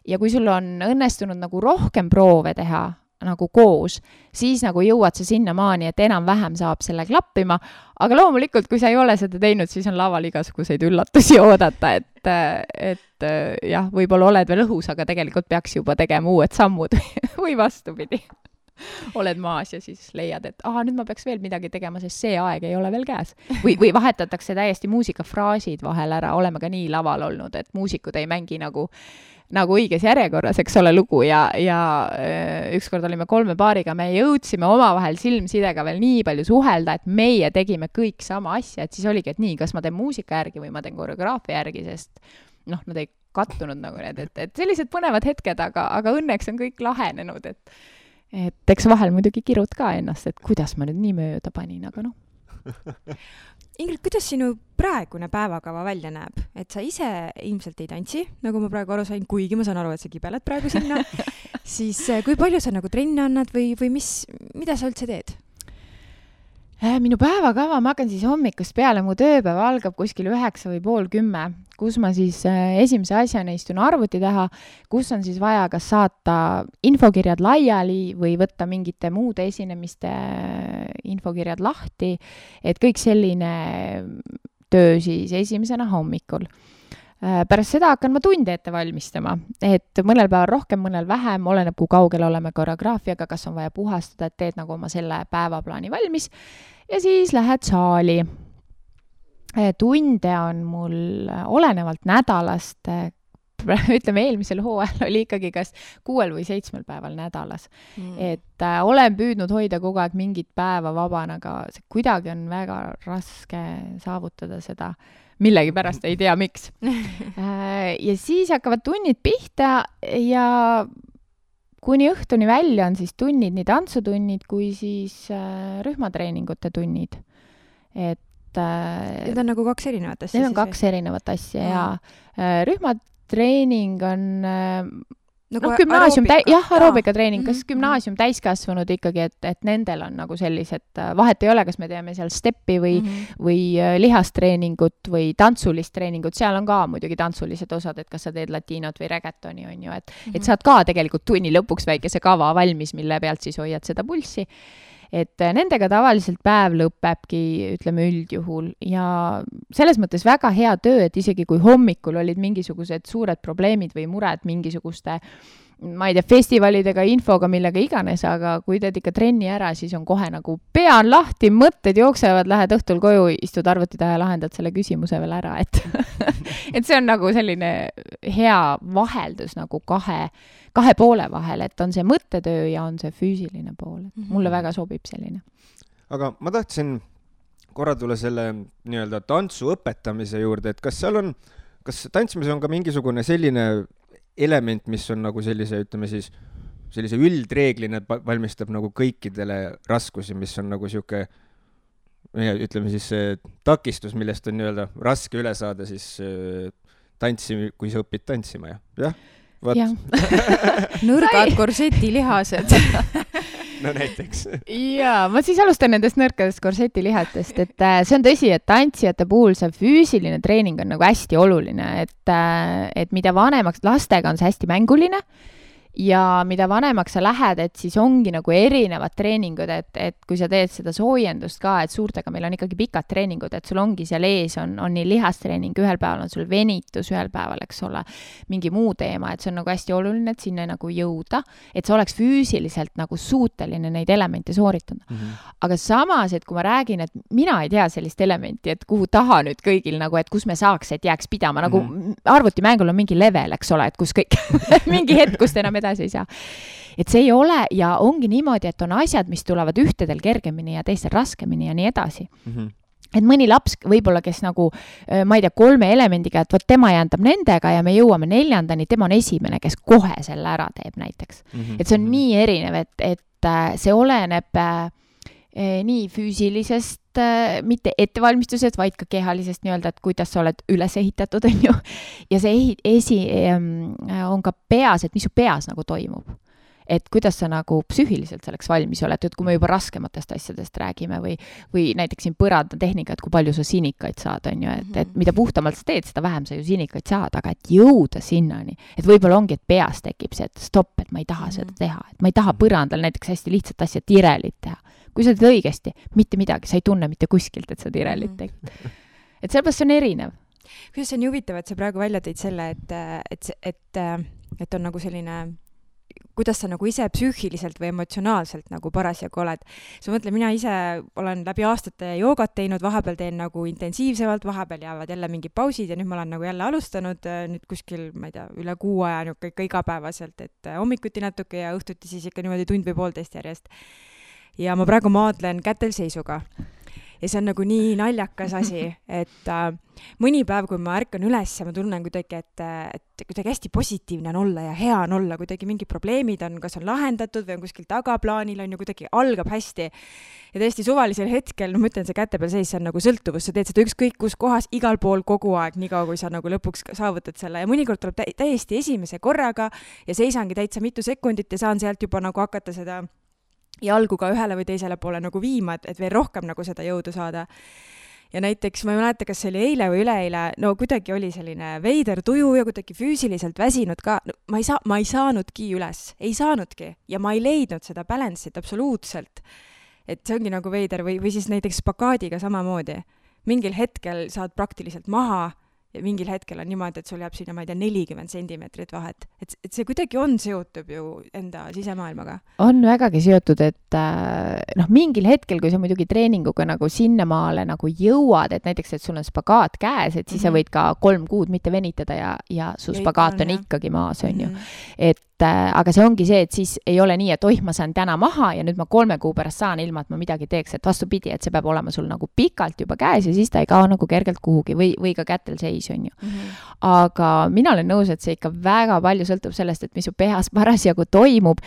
Ja kui sul on õnnestunud nagu rohkem proove teha nagu koos, siis nagu jõuad sa sinna maani, et enam-vähem saab selle klappima, aga loomulikult, kui sa ei ole seda teinud, siis on laval igasuguseid üllatusi oodata, et jah, võib-olla oled veel õhus, aga tegelikult peaks juba tegema uued sammud või vastupidi. Oled maas ja siis leiad, et nüüd ma peaks veel midagi tegema, sest see aeg ei ole veel käes. Või vahetatakse täiesti muusikafraasid vahel ära, oleme ka nii laval olnud, et muusikud ei mängi nagu õiges järjekorras, eks ole, lugu ja ükskord olime 3 paariga, me jõudsime omavahel silmsidega veel nii palju suhelda, et meie tegime kõik sama asja, et siis oligi, et nii, kas ma teen muusika järgi või ma teen koreograafia järgi, sest nad ei kattunud nagu need, et sellised põnevad hetked, aga õnneks on kõik lahenenud, et eks vahel muidugi kirud ka ennast, et kuidas ma nüüd nii mööda panin, aga Ingrid, kuidas sinu praegune päevakava välja näeb? Et sa ise ilmselt ei tantsi, nagu ma praegu aru sain, kuigi ma saan aru, et sa kibeled praegu sinna. Siis kui palju sa nagu trenne annad või mida sa üldse teed? Minu päevakava, ma hakkan siis hommikust peale, mu tööpäev algab kuskil 9 või pool 10, kus ma siis esimese asjana istun arvuti taha, kus on siis vaja kas saata infokirjad laiali või võtta mingite muude esinemiste infokirjad lahti, et kõik selline töö siis esimesena hommikul. Pärast seda hakkan ma tunde ette valmistama, et mõnel päeval rohkem, mõnel vähem, oleneb kui kaugel oleme koreograafiaga, kas on vaja puhastada, et teed nagu oma selle päevaplaani valmis ja siis lähed saali. Tunde on mul olenevalt nädalast, ütleme eelmisel hooajal oli ikkagi kas 6 või 7 päeval nädalas. Et olen püüdnud hoida kogu aeg mingit päeva vabana, aga kuidagi on väga raske saavutada seda. Millegi pärast ei tea, miks. Ja siis hakkavad tunnid pihta ja kuni õhtuni välja on siis tunnid, nii tantsutunnid kui siis rühmatreeningute tunnid. Need on nagu 2 erinevat asja? Need on 2 erinevat asja ja rühmatreening on... Nagu gümnaasium, aeroobikatreening, kas Mhm. gümnaasium täiskasvanud ikkagi, et nendel on nagu sellised, vahet ei ole, kas me teeme seal steppi või lihastreeningut või tantsulist treeningut, seal on ka muidugi tantsulised osad, et kas sa teed latiinot või reggaetoni, on ju, et saad ka tegelikult tunni lõpuks väikese kava valmis, mille pealt siis hoiad seda pulssi. Et nendega tavaliselt päev lõpebki, ütleme üldjuhul, ja selles mõttes väga hea töö, et isegi kui hommikul olid mingisugused suured probleemid või mured mingisuguste, ma ei tea, festivalidega, infoga, millega iganes, aga kui teed ikka trenni ära, siis on kohe nagu pea on lahti, mõtted jooksevad, lähed õhtul koju, istud arvuti taha ja lahendad selle küsimuse veel ära, et et see on nagu selline hea vaheldus nagu kahe poole vahel, et on see mõttetöö ja on see füüsiline pool. Mulle väga sobib selline. Aga ma tahtsin korra tulla selle nii-öelda tantsu õpetamise juurde, et kas tantsimis on ka mingisugune selline element, mis on nagu sellise, ütleme siis, sellise üldreeglina valmistab nagu kõikidele raskusi, mis on nagu siuke, ütleme siis see takistus, millest on nii-öelda raske üle saada siis tantsi, kui sa õpid tantsima, jah? Nõrgad korsetilihased. No näiteks. Jaa, ma siis alustan nendest nõrkadest korsetilihatest, et see on tõsi, et tantsijate puhul see füüsiline treening on nagu hästi oluline, et mida vanemaks, lastega on see hästi mänguline ja mida vanemaks sa lähed, et siis ongi nagu erinevad treeningud, et kui sa teed seda soojendust ka, et suurtega meil on ikkagi pikad treeningud, et sul ongi seal ees on nii lihastreening, ühel päeval on sul venitus, ühel päeval, eks ole, mingi muu teema, et see on nagu hästi oluline, et sinna nagu jõuda, et sa oleks füüsiliselt nagu suuteline neid elemente sooritada. Aga samas, et kui ma räägin, et mina ei tea sellist elementi, et kuhu taha nüüd kõigil nagu, et kus me saaks, et jääks pidama, nagu arvutimängul on mingi level, eks ole, et kus kõik mingi hetk, kus enam edasi ei saa. Et see ei ole ja ongi niimoodi, et on asjad, mis tulevad ühtedel kergemini ja teistel raskemini ja nii edasi. Et mõni laps võib-olla, kes nagu, ma ei tea, 3 elemendiga, et võt tema jändab nendega ja me jõuame 4, tema on esimene, kes kohe selle ära teeb näiteks. Et see on nii erinev, et see oleneb nii füüsilisest, mitte ettevalmistusest, vaid ka kehalisest nii-öelda, et kuidas sa oled üles ehitatud, on ju. Ja see on ka peas, et mis su peas nagu toimub. Et kuidas sa nagu psüühiliselt selleks valmis oled, et kui me juba raskematest asjadest räägime või näiteks siin põrandatehnika, et kui palju sa sinikaid saad, on ju, et mida puhtamalt sa teed, seda vähem sa ju sinikaid saad, aga et jõuda sinnani, et võib-olla ongi, et peas tekib see, et stopp, et ma ei taha seda teha, et ma ei taha põrandal näiteks hästi lihtsat asja tirelit teha. Kui sa teed õigesti, mitte midagi, sa ei tunne mitte kuskilt, et sa tirelit tegid. Et sellepärast see on erinev. Kuidas see on huvitav, et sa praegu välja tõid selle, et on nagu selline, kuidas sa nagu ise psüühiliselt või emotsionaalselt nagu parasjagu oled. Sa mõtle, mina ise olen läbi aastate joogat teinud, vahepeal teen nagu intensiivsemalt, vahepeal jäävad jälle mingid pausid ja nüüd ma olen nagu jälle alustanud nüüd kuskil, ma ei tea, üle 6 aja ikka igapäevaselt, et hommikuti natuke ja õhtuti siis ikka niimoodi tund või 1,5 järjest. Ja ma praegu maadlen kätelseisuga. Ja see on nagu nii naljakas asi, et mõni päev, kui ma ärkan üles ja ma tunnen kuidagi, et kuidagi hästi positiivne on olla ja hea on olla, kuidagi mingid probleemid on, kas on lahendatud või on kuskil tagaplaanil on ju kuidagi algab hästi. Ja tõesti suvalisel hetkel, ma ütlen, see käte peal seis, see on nagu sõltuvus, sa teed seda ükskõik kus kohas, igal pool kogu aeg, nii kaua, kui sa nagu lõpuks saavutad selle ja mõnikord tuleb täiesti esimese korraga ja seisangi täitsa mitu sekundit ja saan sealt juba nagu hakata seda jalgu ka ühele või teisele poole nagu viima, et veel rohkem nagu seda jõudu saada. Ja näiteks, ma ei mäleta, kas see oli eile või üleeile, no kuidagi oli selline veider tuju ja kuidagi füüsiliselt väsinud ka. No, ma ei saanudki üles, ei saanudki ja ma ei leidnud seda balance'it absoluutselt. Et see ongi nagu veider või siis näiteks spagaadiga samamoodi. Mingil hetkel saad praktiliselt maha ja mingil hetkel on niimoodi, et sul jääb sinna, ma ei tea, 40 sentimeetrit vahet. Et see kuidagi on seotud ju enda sisemaailmaga. On vägagi seotud, et mingil hetkel, kui sa muidugi treeninguga nagu sinnamaale nagu jõuad, et näiteks, et sul on spagaat käes, et siis sa võid ka 3 kuud mitte venitada ja su spagaat on ikkagi maas, on ju. Aga see ongi see, et siis ei ole nii, et ma saan täna maha ja nüüd ma 3 kuu pärast saan ilma, et ma midagi teeks, et vastupidi, et see peab olema sul nagu pikalt juba käes ja siis ta ei kao nagu kergelt kuhugi või ka kätel seis, on ju. Aga mina olen nõus, et see ikka väga palju sõltub sellest, et mis su pehas parasjagu toimub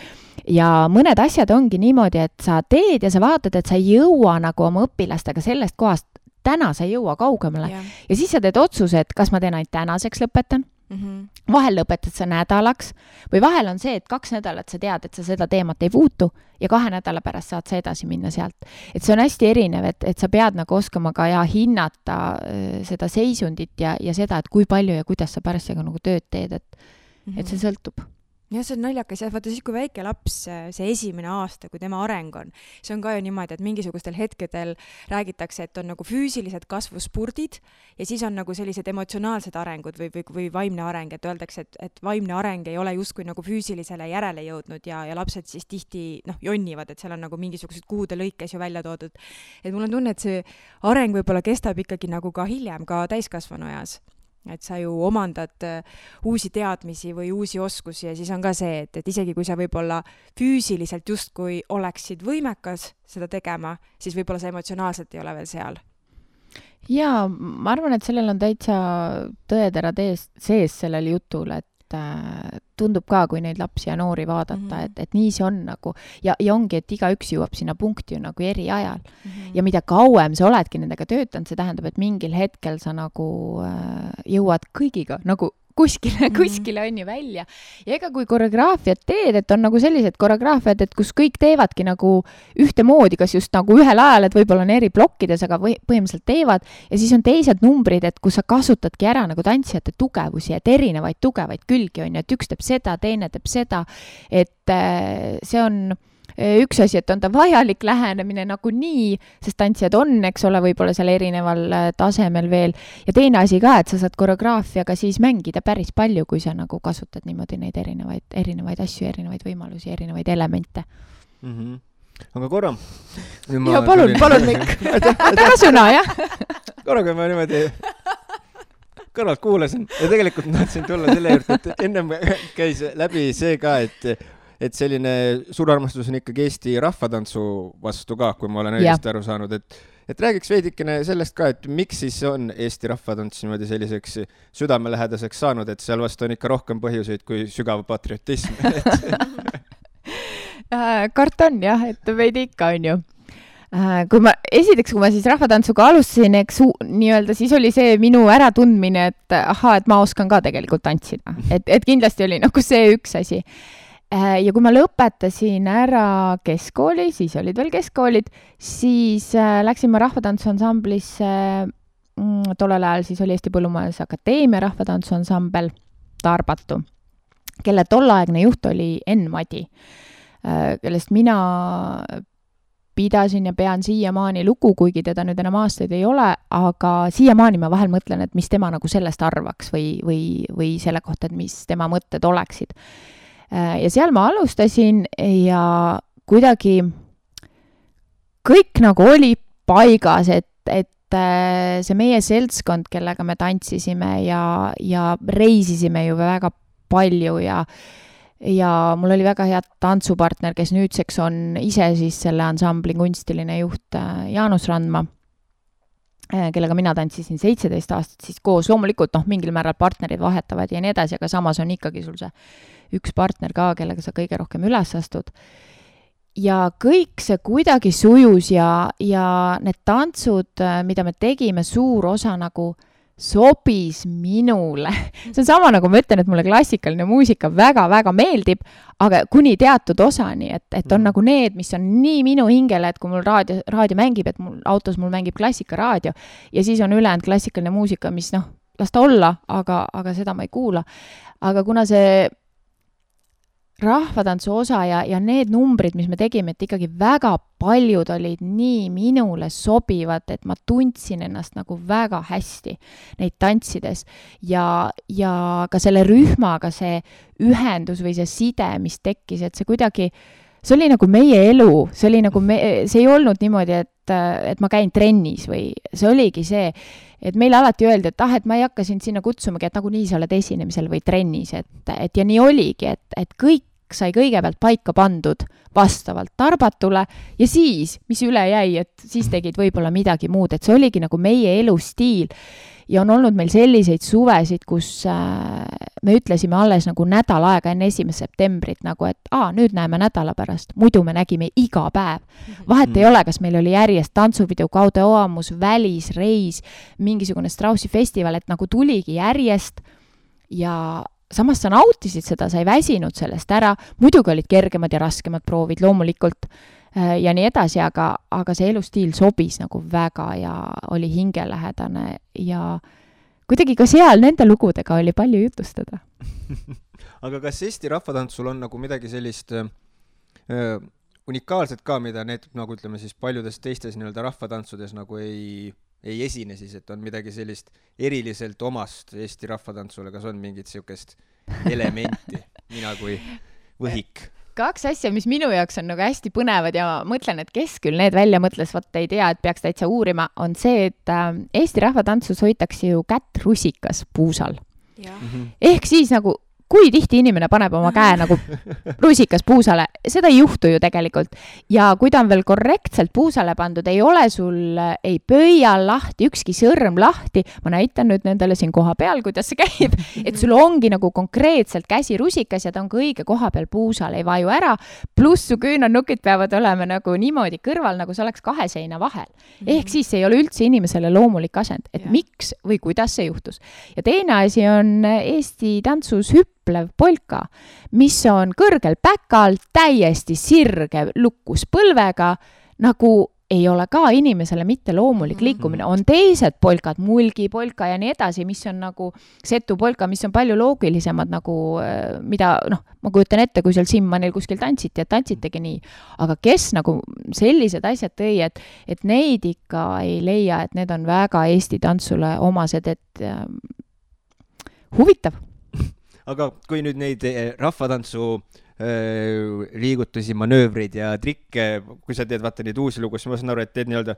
ja mõned asjad ongi niimoodi, et sa teed ja sa vaatad, et sa ei jõua nagu oma õpilastega sellest kohast, täna sa ei jõua kaugemale ja siis sa teed otsuse, et kas ma teen ainult tänaseks lõpetan Vahel lõpetad sa nädalaks või vahel on see, et 2 nädalat sa tead, et sa seda teemat ei puutu ja 2 nädala pärast saad sa edasi minna sealt. Et see on hästi erinev, et sa pead nagu oskama ka hinnata seda seisundit ja seda, et kui palju ja kuidas sa parasjagu nagu tööd teed, et see sõltub. Ja see on naljakas, vaata siis, kui väike laps, see esimene aasta, kui tema areng on, see on ka ju niimoodi, et mingisugustel hetkedel räägitakse, et on nagu füüsilised kasvuspurdid ja siis on nagu sellised emotsionaalsed arengud või vaimne areng, et öeldakse, et vaimne areng ei ole justkui nagu füüsilisele järele jõudnud ja lapsed siis tihti jonnivad, et seal on nagu mingisugused kuude lõikes ju välja toodud. Et mul on tunne, et see areng võib-olla kestab ikkagi nagu ka hiljem, ka täiskasvanu eas. Et sa ju omandad uusi teadmisi või uusi oskusi ja siis on ka see, et isegi kui sa võib-olla füüsiliselt justkui oleksid võimekas seda tegema, siis võib-olla sa emotsionaalselt ei ole veel seal. Jaa, ma arvan, et sellel on täitsa tõeterad sees sellel jutul, et tundub ka, kui neid lapsi ja noori vaadata, et nii see on nagu ja ongi, et igaüks jõuab sinna punkti ju nagu eri ajal. Ja mida kauem sa oledki nendega töötanud, see tähendab, et mingil hetkel sa nagu jõuad kõigiga nagu kuskile on ju välja. Ja ega kui koreograafiat teed, et on nagu sellised koreograafiad, et kus kõik teevadki nagu ühtemoodi, kas just nagu ühel ajal, et võib-olla on eri plokkides, aga põhimõtteliselt teevad. Ja siis on teised numbrid, et kus sa kasutadki ära nagu tantsijate tugevusi, et erinevaid tugevaid külgi on, et üks teeb seda, teine teeb seda, et see on üks asi, et on ta vajalik lähenemine nagu nii, sest tantsijad on, eks ole, võib-olla seal erineval tasemel veel. Ja teine asi ka, et sa saad koreograafiaga siis mängida päris palju, kui sa nagu kasutad niimoodi neid erinevaid asju, erinevaid võimalusi, erinevaid elemente. Aga korra. Ja palun Mikk. Väga sõna, jah? Korra, kui ma niimoodi kõrvalt kuulasin ja tegelikult tahtsin tulla selle juurde, et ennem käis läbi see ka, et selline suur armastus on ikkagi Eesti rahvatantsu vastu ka, kui ma olen õigesti aru saanud, et räägiks veidikene sellest ka, et miks siis on Eesti rahvatants niimoodi selliseks südamelähedaseks saanud, et seal vastu on ikka rohkem põhjuseid kui sügav patriotism. Kartan jah, et veidi ikka on ju. Kui ma siis rahvatantsuga alustasin, eks nii-öelda, siis oli see minu äratundmine, et et ma oskan ka tegelikult tantsida. Et kindlasti oli nagu see üks asi. Ja kui ma lõpetasin ära keskkooli, siis olid veel keskkoolid, siis läksin ma rahvatantsuansamblisse, tollel ajal siis oli Eesti Põllumajandusakadeemia rahvatantsuansambel Tarbatu, kelle tollaegne juht oli Enn Madi, kellest mina pidasin ja pean siiamaani lugu, kuigi teda nüüd enam aastaid ei ole, aga siiamaani ma vahel mõtlen, et mis tema nagu sellest arvaks või selle kohta, et mis tema mõtted oleksid. Ja seal ma alustasin ja kuidagi kõik nagu oli paigas, et see meie seltskond, kellega me tantsisime ja reisisime ju väga palju ja mul oli väga hea tantsupartner, kes nüüdseks on ise siis selle ansambli kunstiline juht Jaanus Randma, kellega mina tantsisin 17 aastat siis koos. Loomulikult mingil määral partnerid vahetavad ja nii edasi, aga samas on ikkagi sul see üks partner ka, kellega sa kõige rohkem üles astud. Ja kõik see kuidagi sujus ja need tantsud, mida me tegime, suur osa nagu sobis minule. See on sama nagu ma ütlen, et mulle klassikaline muusika väga-väga meeldib, aga kuni teatud osani, et on nagu need, mis on nii minu hingele, et kui mul raadio mängib, et autos mul mängib klassikaraadio ja siis on ülejäänud klassikaline muusika, mis las ta olla, aga seda ma ei kuula. Aga kuna see rahvatantsu osa ja need numbrid, mis me tegime, et ikkagi väga paljud olid nii minule sobivad, et ma tundsin ennast nagu väga hästi neid tantsides ja ka selle rühmaga see ühendus või see side, mis tekkis, et see kuidagi, see oli nagu meie elu, see oli nagu see ei olnud niimoodi, et ma käin trennis või see oligi see, et meile alati öeldi, et ma ei hakka sind sinna kutsumagi, et nagu nii sa oled esinemisel või trennis, et ja nii oligi, et kõik sai kõigepealt paika pandud vastavalt Tarbatule ja siis, mis üle jäi, et siis tegid võib-olla midagi muud, et see oligi nagu meie elustiil ja on olnud meil selliseid suvesid, kus me ütlesime alles nagu nädal aega enne 1. septembrit nagu, et nüüd näeme nädala pärast, muidu me nägime iga päev. Vahet ei ole, kas meil oli järjest tantsuvideo, Kaude Oamus, välisreis, mingisugune Straussi festival, et nagu tuligi järjest ja samas sa nautisid seda, sa ei väsinud sellest ära, muidugi olid kergemad ja raskemad proovid loomulikult ja nii edasi, aga see elustiil sobis nagu väga ja oli hingelähedane ja kuidagi ka seal nende lugudega oli palju jutustada. Aga kas Eesti rahvatantsul on nagu midagi sellist unikaalset ka, mida need, nagu ütleme siis paljudes teistes nii-öelda rahvatantsudes nagu ei esine siis, et on midagi sellist eriliselt omast Eesti rahvatantsule, kas on mingit siukest elementi, mina kui võhik? Kaks asja, mis minu jaoks on nagu hästi põnevad ja mõtlen, et kes küll need välja mõtles, ei tea, et peaks täitsa uurima, on see, et Eesti rahvatantsus hoitakse ju kätt rusikas puusal. Ehk siis nagu kui tihti inimene paneb oma käe nagu rusikas puusale, seda ei juhtu ju tegelikult. Ja kui ta on veel korrektselt puusale pandud, ei ole sul ei pöia lahti, ükski sõrm lahti, ma näitan nüüd nendele siin koha peal, kuidas see käib, et sul ongi nagu konkreetselt käsi rusikas ja ta on ka õige koha peal puusal, ei vaju ära, pluss su küünarnukid peavad olema nagu niimoodi kõrval, nagu see oleks kahe seina vahel. Ehk siis see ei ole üldse inimesele loomulik asend, et miks või kuidas see juhtus. Ja teine asi on Eesti tantsus polka, mis on kõrgel päkal, täiesti sirge lukkus põlvega, nagu ei ole ka inimesele mitte loomulik liikumine. On teised polkad, mulgipolka ja nii edasi, mis on nagu setupolka, mis on palju loogilisemad, nagu mida, ma kujutan ette, kui seal Simmanil kuskil tantsiti, et tantsitegi nii. Aga kes nagu sellised asjad tõi, et neid ikka ei leia, et need on väga Eesti tantsule omased, et huvitav. Aga kui nüüd neid rahvatantsu liigutusi, manöövreid ja trikke, kui sa teed vaata neid uusi lugu, siis ma saan aru, et teed nii-öelda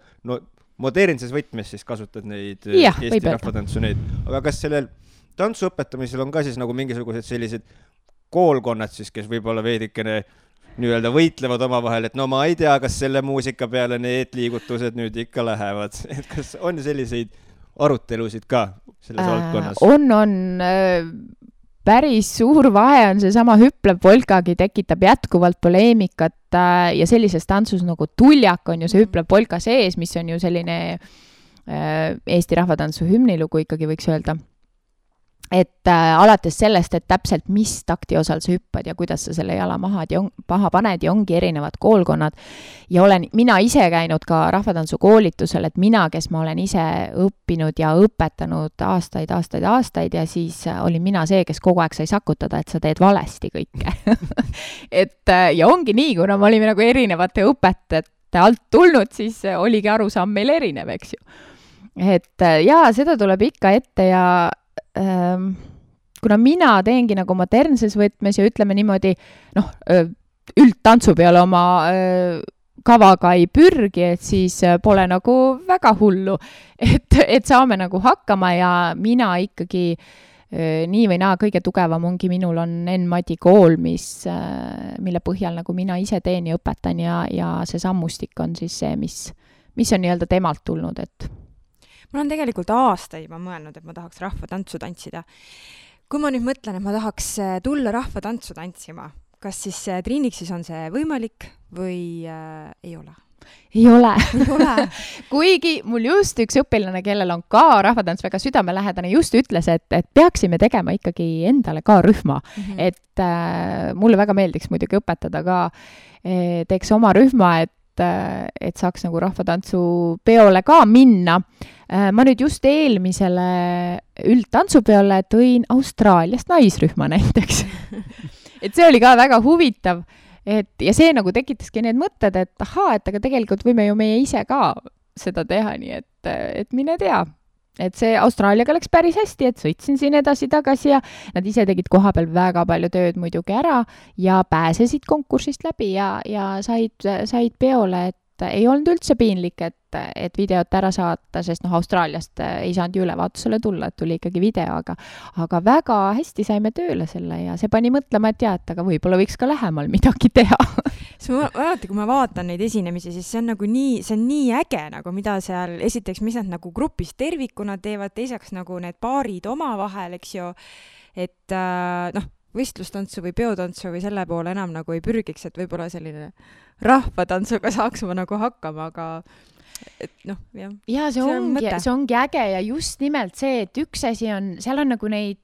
modernses võtmes siis kasutad neid Eesti rahvatantsu neid. Aga kas sellel tantsu õpetamisel on ka siis nagu mingisugused sellised koolkonnad siis, kes võib-olla veidikene nii-öelda võitlevad omavahel, et no ma ei tea, kas selle muusika peale need liigutused nüüd ikka lähevad. Et kas on selliseid arutelusid ka selles valdkonnas? On päris suur vahe on see sama hüplev polkagi, tekitab jätkuvalt poleemikat ja sellises tantsus nagu tuljak on ju see hüplev polka sees, mis on ju selline Eesti rahvatantsu hümnilugu ikkagi võiks öelda. Et alates sellest, et täpselt mis takti osal sa hüppad ja kuidas sa selle jala maha paned ja ongi erinevad koolkonnad. Ja olen mina ise käinud ka rahvatantsu koolitusel, et mina, kes ma olen ise õppinud ja õpetanud aastaid ja siis olin mina see, kes kogu aeg sai sakutada, et sa teed valesti kõike. Ja ongi nii, kuna me olime nagu erinevate õpetajate alt tulnud, siis oligi arusaam meil erinev, eks ju. Et jaa, seda tuleb ikka ette ja kuna mina teengi nagu modernses võtmes ja ütleme niimoodi, üldtantsu peale oma kavaga ei pürgi, et siis pole nagu väga hullu, et saame nagu hakkama ja mina ikkagi nii või naa kõige tugevam ongi, minul on N-Madi kool, mille põhjal nagu mina ise teen ja õpetan ja see sammustik on siis see, mis on nii-öelda temalt tulnud, et mul on tegelikult aastaid juba mõelnud, et ma tahaks rahvatantsu tantsida. Kui ma nüüd mõtlen, et ma tahaks tulla rahvatantsu tantsima, kas siis Triiniksis on see võimalik või ei ole? Ei ole. Kuigi mul just üks õpilane, kellel on ka rahvatants väga südamelähedane, just ütles, et peaksime tegema ikkagi endale ka rühma. Et mulle väga meeldiks muidugi õpetada ka, teeks oma rühma, et saaks nagu rahvatantsu peole ka minna. Ma nüüd just eelmisele üldtantsupeole tõin Austraaliast naisrühma näiteks. Et see oli ka väga huvitav. Ja see nagu tekitaski need mõtted, et aga tegelikult võime ju meie ise ka seda teha, nii et mine tea. Et see Austraaliaga läks päris hästi, et sõitsin siin edasi-tagasi ja nad ise tegid koha peal väga palju tööd muidugi ära ja pääsesid konkursist läbi ja said peole, et ei olnud üldse piinlik, et videot ära saata, sest Austraaliast ei saanud ju ülevaatusele tulla, et tuli ikkagi video, aga väga hästi saime tööle selle ja see pani mõtlema, et aga võib-olla võiks ka lähemal midagi teha. Alati, kui ma vaatan neid esinemisi, siis see on nagu nii äge, nagu mida seal esiteks, mis nad nagu grupis tervikuna teevad, teiseks nagu need paarid omavahel, eks ju, et võistlustantsu või peotantsu või selle poole enam nagu ei pürgiks, et võib-olla selline rahvatantsuga saaks ma nagu hakkama, aga et noh, jah. Ja see ongi äge ja just nimelt see, et üks asi on, seal on nagu neid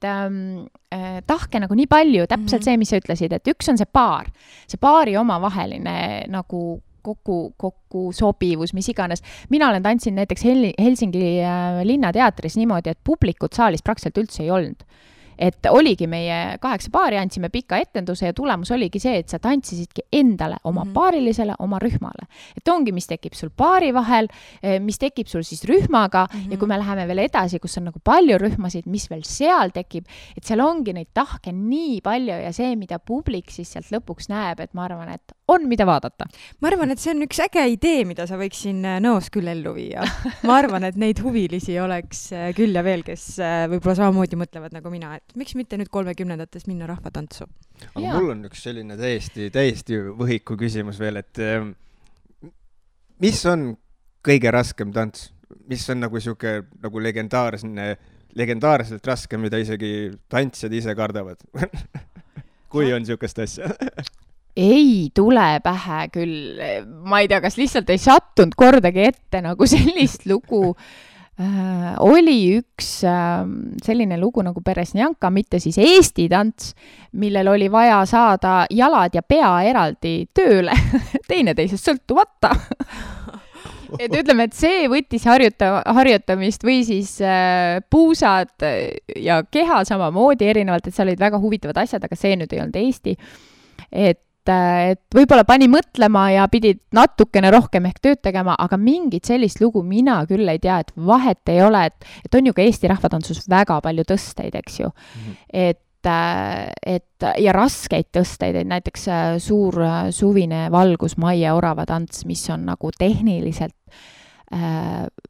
tahke nagu nii palju, täpselt see, mis sa ütlesid, et üks on see paari omavaheline nagu kokku sobivus, mis iganes. Mina olen tantsinud näiteks Helsingi linnateatris niimoodi, et publikut saalis praktiliselt üldse ei olnud. Et oligi meie 8 paari, andsime pika etenduse ja tulemus oligi see, et sa tantsisidki endale, oma paarilisele, oma rühmale. Et ongi, mis tekib sul paari vahel, mis tekib sul siis rühmaga ja kui me läheme veel edasi, kus on nagu palju rühmasid, mis veel seal tekib, et seal ongi neid tahke nii palju ja see, mida publik siis sealt lõpuks näeb, et ma arvan, et on mida vaadata. Ma arvan, et see on üks äge idee, mida sa võiks siin noos küll ellu viia. Ma arvan, et neid huvilisi oleks küll ja veel, kes võib-olla samamoodi mõtlevad nagu mina, et miks mitte nüüd 30-ndates minna rahvatantsu? Aga mul on üks selline täiesti võhiku küsimus veel, et mis on kõige raskem tants? Mis on nagu siuke nagu legendaarselt raske, mida isegi tantsijad ise kardavad? Kui on siukest asja? Ei tule pähe küll. Ma ei tea, kas lihtsalt ei sattunud kordagi ette nagu sellist lugu. Oli üks selline lugu nagu Peresnjanka, mitte siis Eesti tants, millel oli vaja saada jalad ja pea eraldi tööle, teineteisest sõltumata. Et ütleme, et see võttis harjutamist või siis puusad ja keha samamoodi erinevalt, et seal olid väga huvitavad asjad, aga see nüüd ei olnud Eesti. Et võib-olla pani mõtlema ja pidid natukene rohkem ehk tööd tegema, aga mingit sellist lugu mina küll ei tea, et vahet ei ole, et on ju ka Eesti rahvatantsus väga palju tõsteid, eks ju. Et ja raskeid tõsteid, et näiteks suur suvine valgus Maie Orava tants, mis on nagu tehniliselt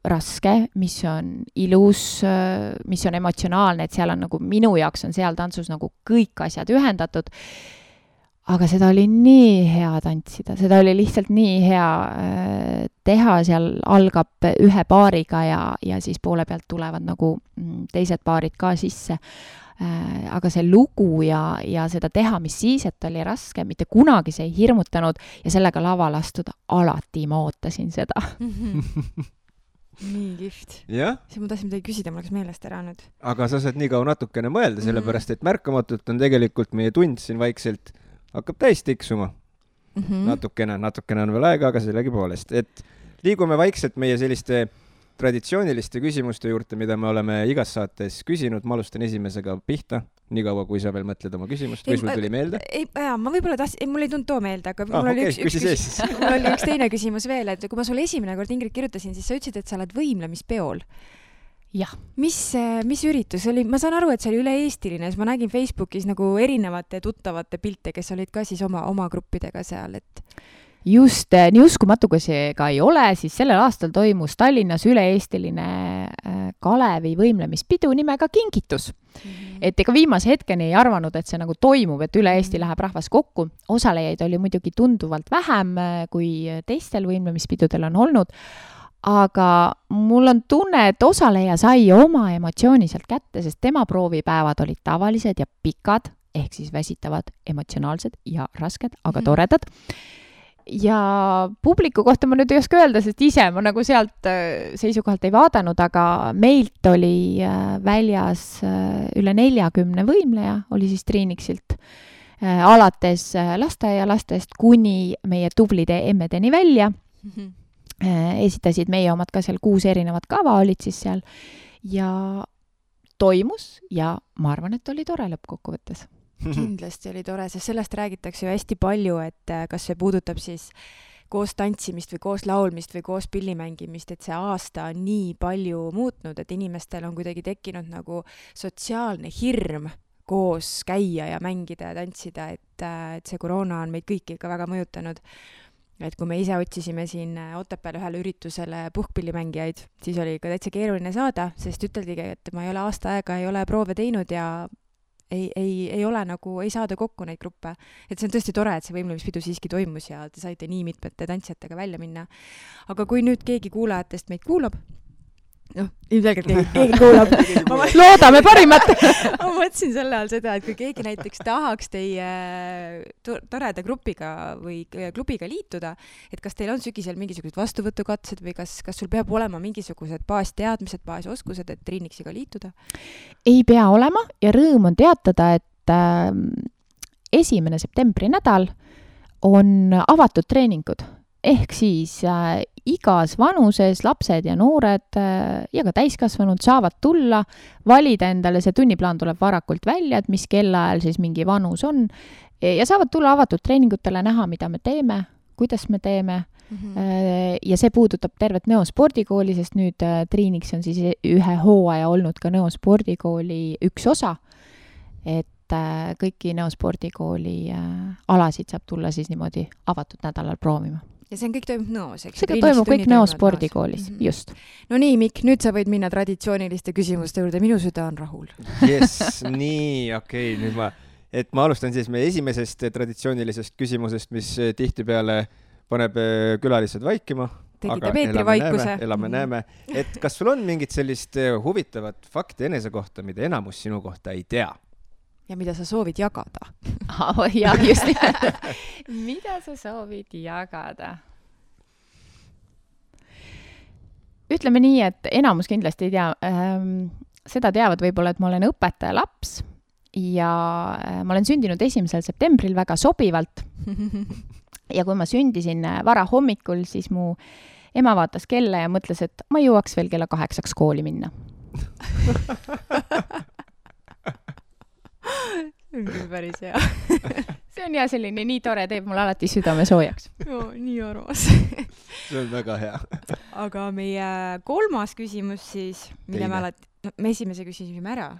raske, mis on ilus, mis on emotsionaalne, et seal on nagu minu jaoks on seal tantsus nagu kõik asjad ühendatud. Aga seda oli nii hea tantsida, seda oli lihtsalt nii hea teha, seal algab ühe paariga ja siis poole pealt tulevad nagu teised paarid ka sisse. Aga see lugu ja seda teha, mis siis, et oli raske, mitte kunagi see ei hirmutanud ja sellega laval astuda, alati ma ootasin seda. Nii kihvt. Ja? See ma tahtsin midagi küsida, mul läks meelest ära nüüd. Aga sa saad nii kaua natukene mõelda, sellepärast et märkamatult on tegelikult meie tund siin vaikselt hakkab täis tiksuma. Natukene on veel aega, aga sellegi poolest. Et liigume vaikselt meie selliste traditsiooniliste küsimuste juurde, mida me oleme igas saates küsinud. Ma alustan esimesega pihta, nii kaua, kui sa veel mõtled oma küsimust. Või sul tuli meelde? Ma võib-olla mul ei tulnud too meelde, aga mul oli üks teine küsimus veel, et kui ma sulle esimene kord, Ingrid, kirjutasin, siis sa ütlesid, et sa oled võimlemispeol. Jah. Mis üritus oli? Ma saan aru, et see oli üle-eestiline, siis ma nägin Facebookis nagu erinevate tuttavate pilte, kes olid ka siis oma gruppidega seal, et... Just, nii uskumatu, kui see ka ei ole, siis sellel aastal toimus Tallinnas üle-eestiline Kalevi võimlemispidu nimega Kingitus. Et ega viimase hetkeni ei arvanud, et see nagu toimub, et üle Eesti läheb rahvas kokku. Osalejaid oli muidugi tunduvalt vähem, kui teistel võimlemispidudel on olnud, aga mul on tunne, et osaleja sai oma emotsiooni sealt kätte, sest tema proovipäevad olid tavalised ja pikad, ehk siis väsitavad, emotsionaalsed ja rasked, aga toredad. Ja publiku kohta ma nüüd ei oska öelda, sest ise ma nagu sealt seisukohalt ei vaadanud, aga meilt oli väljas üle 40 võimleja, oli siis Triiniksilt, alates lasteaialastest kuni meie tublide emmedeni välja. Esitasid meie omad ka seal 6 erinevat kava olid siis seal ja toimus ja ma arvan, et oli tore lõppkokkuvõttes. Kindlasti oli tore, sest sellest räägitakse ju hästi palju, et kas see puudutab siis koos tantsimist või koos laulmist või koos pillimängimist, et see aasta on nii palju muutnud, et inimestel on kuidagi tekkinud nagu sotsiaalne hirm koos käia ja mängida ja tantsida, et see koroona on meid kõiki ikka väga mõjutanud. Et kui me ise otsisime siin Otepääl ühele üritusele puhkpillimängijaid, siis oli ka täitsa keeruline saada, sest üteldigi, et ma ei ole aasta aega, ei ole proove teinud ja ei ole nagu, ei saada kokku neid gruppe. Et see on tõesti tore, et see võimlemispidu siiski toimus ja te saite nii mitmete tantsijatega välja minna. Aga kui nüüd keegi kuulajatest meid kuulab ilmselgelt keegi kuulab. Loodame parimat. Ma mõtlesin selle all seda, et kui keegi näiteks tahaks teie toreda grupiga või klubiga liituda, et kas teil on sügisel mingisugused vastuvõtukatsed või kas sul peab olema mingisugused baasteadmised, baasoskused, et Triinixiga liituda? Ei pea olema ja rõõm on teatada, et 1. septembri nädal on avatud treeningud. Ehk siis igas vanuses lapsed ja noored ja ka täiskasvanud saavad tulla, valida endale, see tunniplaan tuleb varakult välja, et mis kellaajal siis mingi vanus on ja saavad tulla avatud treeningutele näha, mida me teeme, kuidas me teeme. Ja see puudutab tervet Nõo spordikooli, sest nüüd Triinix on siis ühe hooaja olnud ka Nõo spordikooli üks osa, et kõiki Nõo spordikooli alasid saab tulla siis niimoodi avatud nädalal proovima. Ja see kõik toimub Nõos, eks? See toimub kõik Nõo spordikoolis, just. No nii, Mikk, nüüd sa võid minna traditsiooniliste küsimuste juurde, minu süda on rahul. Yes, nii, okei, nüüd ma alustan siis meie esimesest traditsioonilisest küsimusest, mis tihtipeale paneb külalised vaikima. Tegite Peetri-vaikuse. Elame näeme. Et kas sul on mingit sellist huvitavat fakti enese kohta, mida enamus sinu kohta ei tea? Ja mida sa soovid jagada? Ja, just. Mida sa soovid jagada? Ütleme nii, et enamus kindlasti ei tea. Seda teavad võib-olla, et ma olen õpetaja laps ja ma olen sündinud 1. septembril väga sobivalt. Ja kui ma sündisin vara hommikul, siis mu ema vaatas kella ja mõtles, et ma jõuaks veel kella 8 kooli minna. See on küll päris hea. See on selline nii tore, teeb mul alati südame soojaks. Nii armas. See on väga hea. Aga meie 3. küsimus siis, mille me esimese küsisime ära.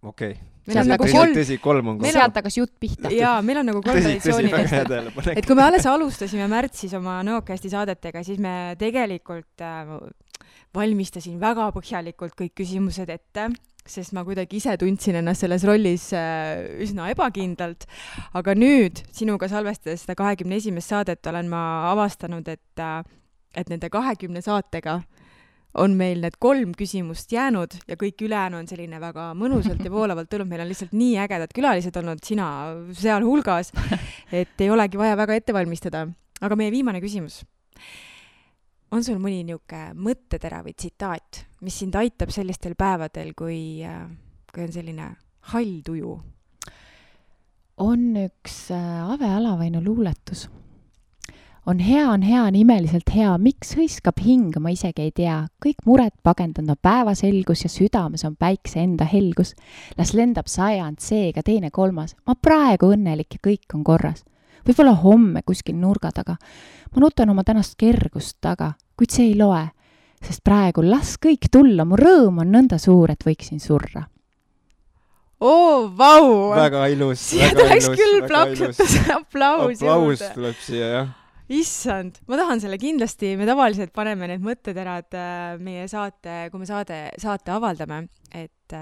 Okei. Meil on nagu 3 on. Sealt hakas jutt pihta. Jaa, meil on nagu 3 traditsioonilist. Et kui me alles alustasime märtsis oma Nõokasti saadetega, siis me tegelikult valmistasin väga põhjalikult kõik küsimused ette, sest ma kuidagi ise tundsin ennast selles rollis üsna ebakindlalt. Aga nüüd, sinuga salvestades seda 21. saadet, olen ma avastanud, et nende 20 saatega on meil need 3 küsimust jäänud ja kõik ülejäänu on selline väga mõnusalt ja voolavalt tulnud. Meil on lihtsalt nii ägedad külalised olnud, sina seal hulgas, et ei olegi vaja väga ette valmistada. Aga meie viimane küsimus. On sul mõni niuke mõttetera või tsitaat, mis sind aitab sellistel päevadel, kui on selline hall tuju? On üks Ave Alavainu luuletus. On hea, on imeliselt hea, miks hõiskab hing, ma isegi ei tea. Kõik mured pagendanud päevaselgus ja südames on päikse enda helgus. Las lendab 100 seega 2, 3. Ma praegu õnnelik ja kõik on korras. Võib-olla homme kuskil nurga taga. Ma nutan oma tänast kergust taga, kuid see ei loe, sest praegu las kõik tulla, mu rõõm on nõnda suur, et võiksin surra. Vau! Väga ilus. Siia tuleks küll plaksutus aplaus juurde. Tuleb siia, jah. Issand, ma tahan selle kindlasti, me tavaliselt paneme need mõtteterad meie saate, kui me saate avaldame, et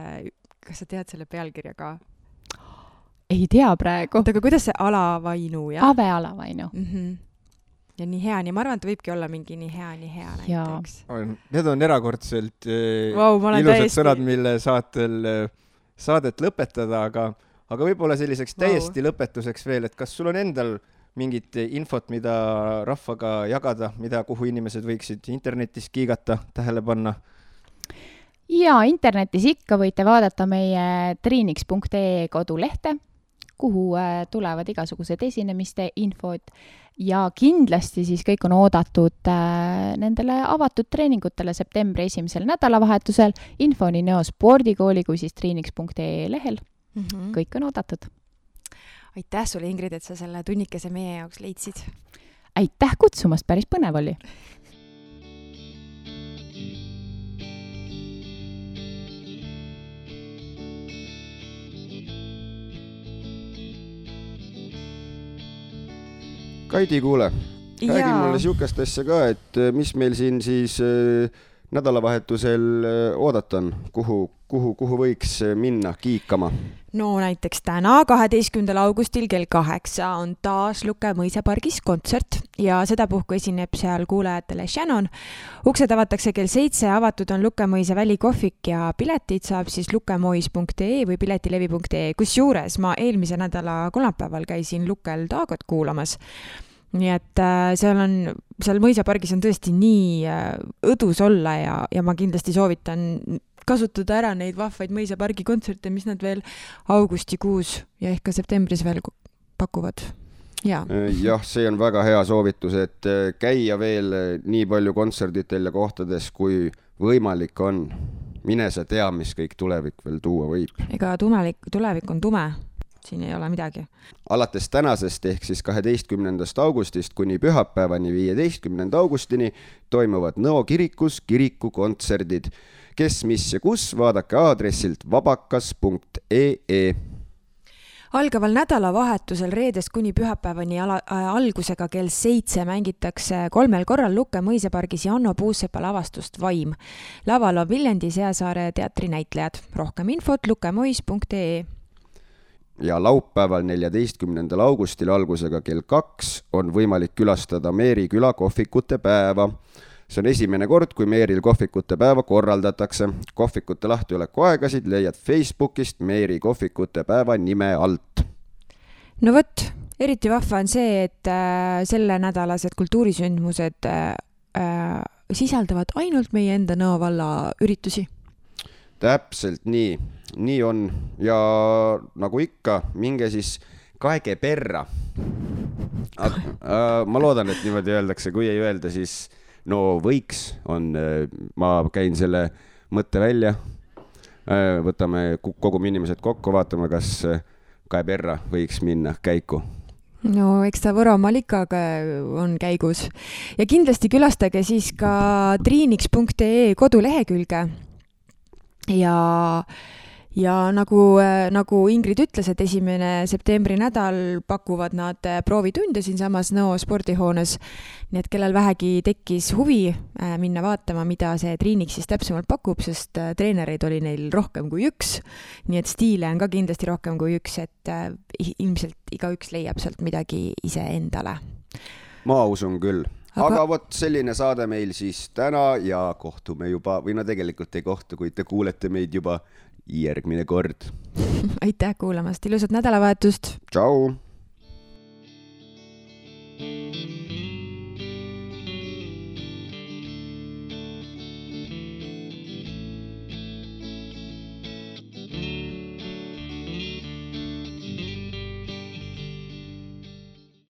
kas sa tead selle pealkirja ka? Ei tea praegu. Aga kuidas see Alavainu, jah? Ave Alavainu. Ja nii hea, ma arvan, et võibki olla mingi nii hea näiteks. Need on erakordselt ilusad sõnad, mille saadet lõpetada, aga võib-olla selliseks täiesti lõpetuseks veel, et kas sul on endal mingit infot, mida rahvaga jagada, kuhu inimesed võiksid internetis kiigata, tähele panna? Ja internetis ikka võite vaadata meie triinix.ee kodulehte, kuhu tulevad igasugused esinemiste infod ja kindlasti siis kõik on oodatud nendele avatud treeningutele septembri 1. nädalavahetusel. Info nii Nõo spordikooli kui siis triinix.ee lehel. Kõik on oodatud. Aitäh sulle, Ingrid, et sa selle tunnikese meie jaoks leidsid. Aitäh kutsumast, päris põnev oli. Kaidi, kuule, räägi mulle siukest asja ka, et mis meil siin siis nädalavahetusel oodatan, kuhu võiks minna kiikama? No näiteks täna, 12. augustil kell 8 on taas Luke mõisapargis kontsert ja sedapuhku esineb seal kuulajatele Shannon. Uksed avatakse kell 7, avatud on Luke mõisa välikohvik ja piletid saab siis lukemois.ee või piletilevi.ee. Kusjuures ma eelmise nädala kolmapäeval käisin Lukel Taagot kuulamas. Nii et seal mõisapargis on tõesti nii õdus olla ja ma kindlasti soovitan kasutada ära neid vahvaid mõisapargi kontserte, mis nad veel augustikuus ja ehk ka septembris veel pakuvad. Jah, see on väga hea soovitus, et käia veel nii palju kontserditel ja kohtades, kui võimalik on. Mine sa tea, mis kõik tulevik veel tuua võib. Ega tulevik on tume. Siin ei ole midagi. Alates tänasest ehk siis 12. augustist kuni pühapäevani 15. augustini toimuvad Nõo kirikus kirikukontserdid. Kes, mis ja kus, vaadake aadressilt vabakas.ee. Algaval nädalavahetusel reedest kuni pühapäevani algusega kell 7 mängitakse 3 korral Luke mõisapargis Janno Puusepa lavastust Vaim. Laval on Viljandi Seasaare teatri näitlejad. Rohkem infot lukemois.ee. Ja laupäeval 14. augustil algusega kell 2 on võimalik külastada Meeri küla kohvikute päeva. See on esimene kord, kui Meeril kohvikute päeva korraldatakse. Kohvikute lahtioleku aegasid leiad Facebookist Meeri kohvikute päeva nime alt. No võt, eriti vahva on see, et selle nädalased kultuurisündmused sisaldavad ainult meie enda Nõo valla üritusi. Täpselt nii on ja nagu ikka, minge siis kaege perra. Ma loodan, et niimoodi öeldakse, kui ei öelda, siis no võiks on, ma käin selle mõtte välja, võtame kogu inimesed kokku, vaatame, kas kae perra võiks minna käiku. No eks ta Võromaal ikka on käigus. Ja kindlasti külastage siis ka triiniks.ee kodulehekülge. Ja nagu Ingrid ütles, et 1. septembri nädal pakuvad nad proovitunde siin samas Nõo spordihoones. Nii et kellel vähegi tekkis huvi minna vaatama, mida see triinik siis täpsemalt pakub, sest treenereid oli neil rohkem kui üks. Nii et stiile on ka kindlasti rohkem kui üks, et ilmselt igaüks leiab sealt midagi ise endale. Ma usun küll. Aga vot selline saade meil siis täna ja kohtume juba, või no tegelikult ei kohtu, kui te kuulete meid juba järgmine kord. Aitäh kuulamast, ilusat nädalavahetust! Tšau!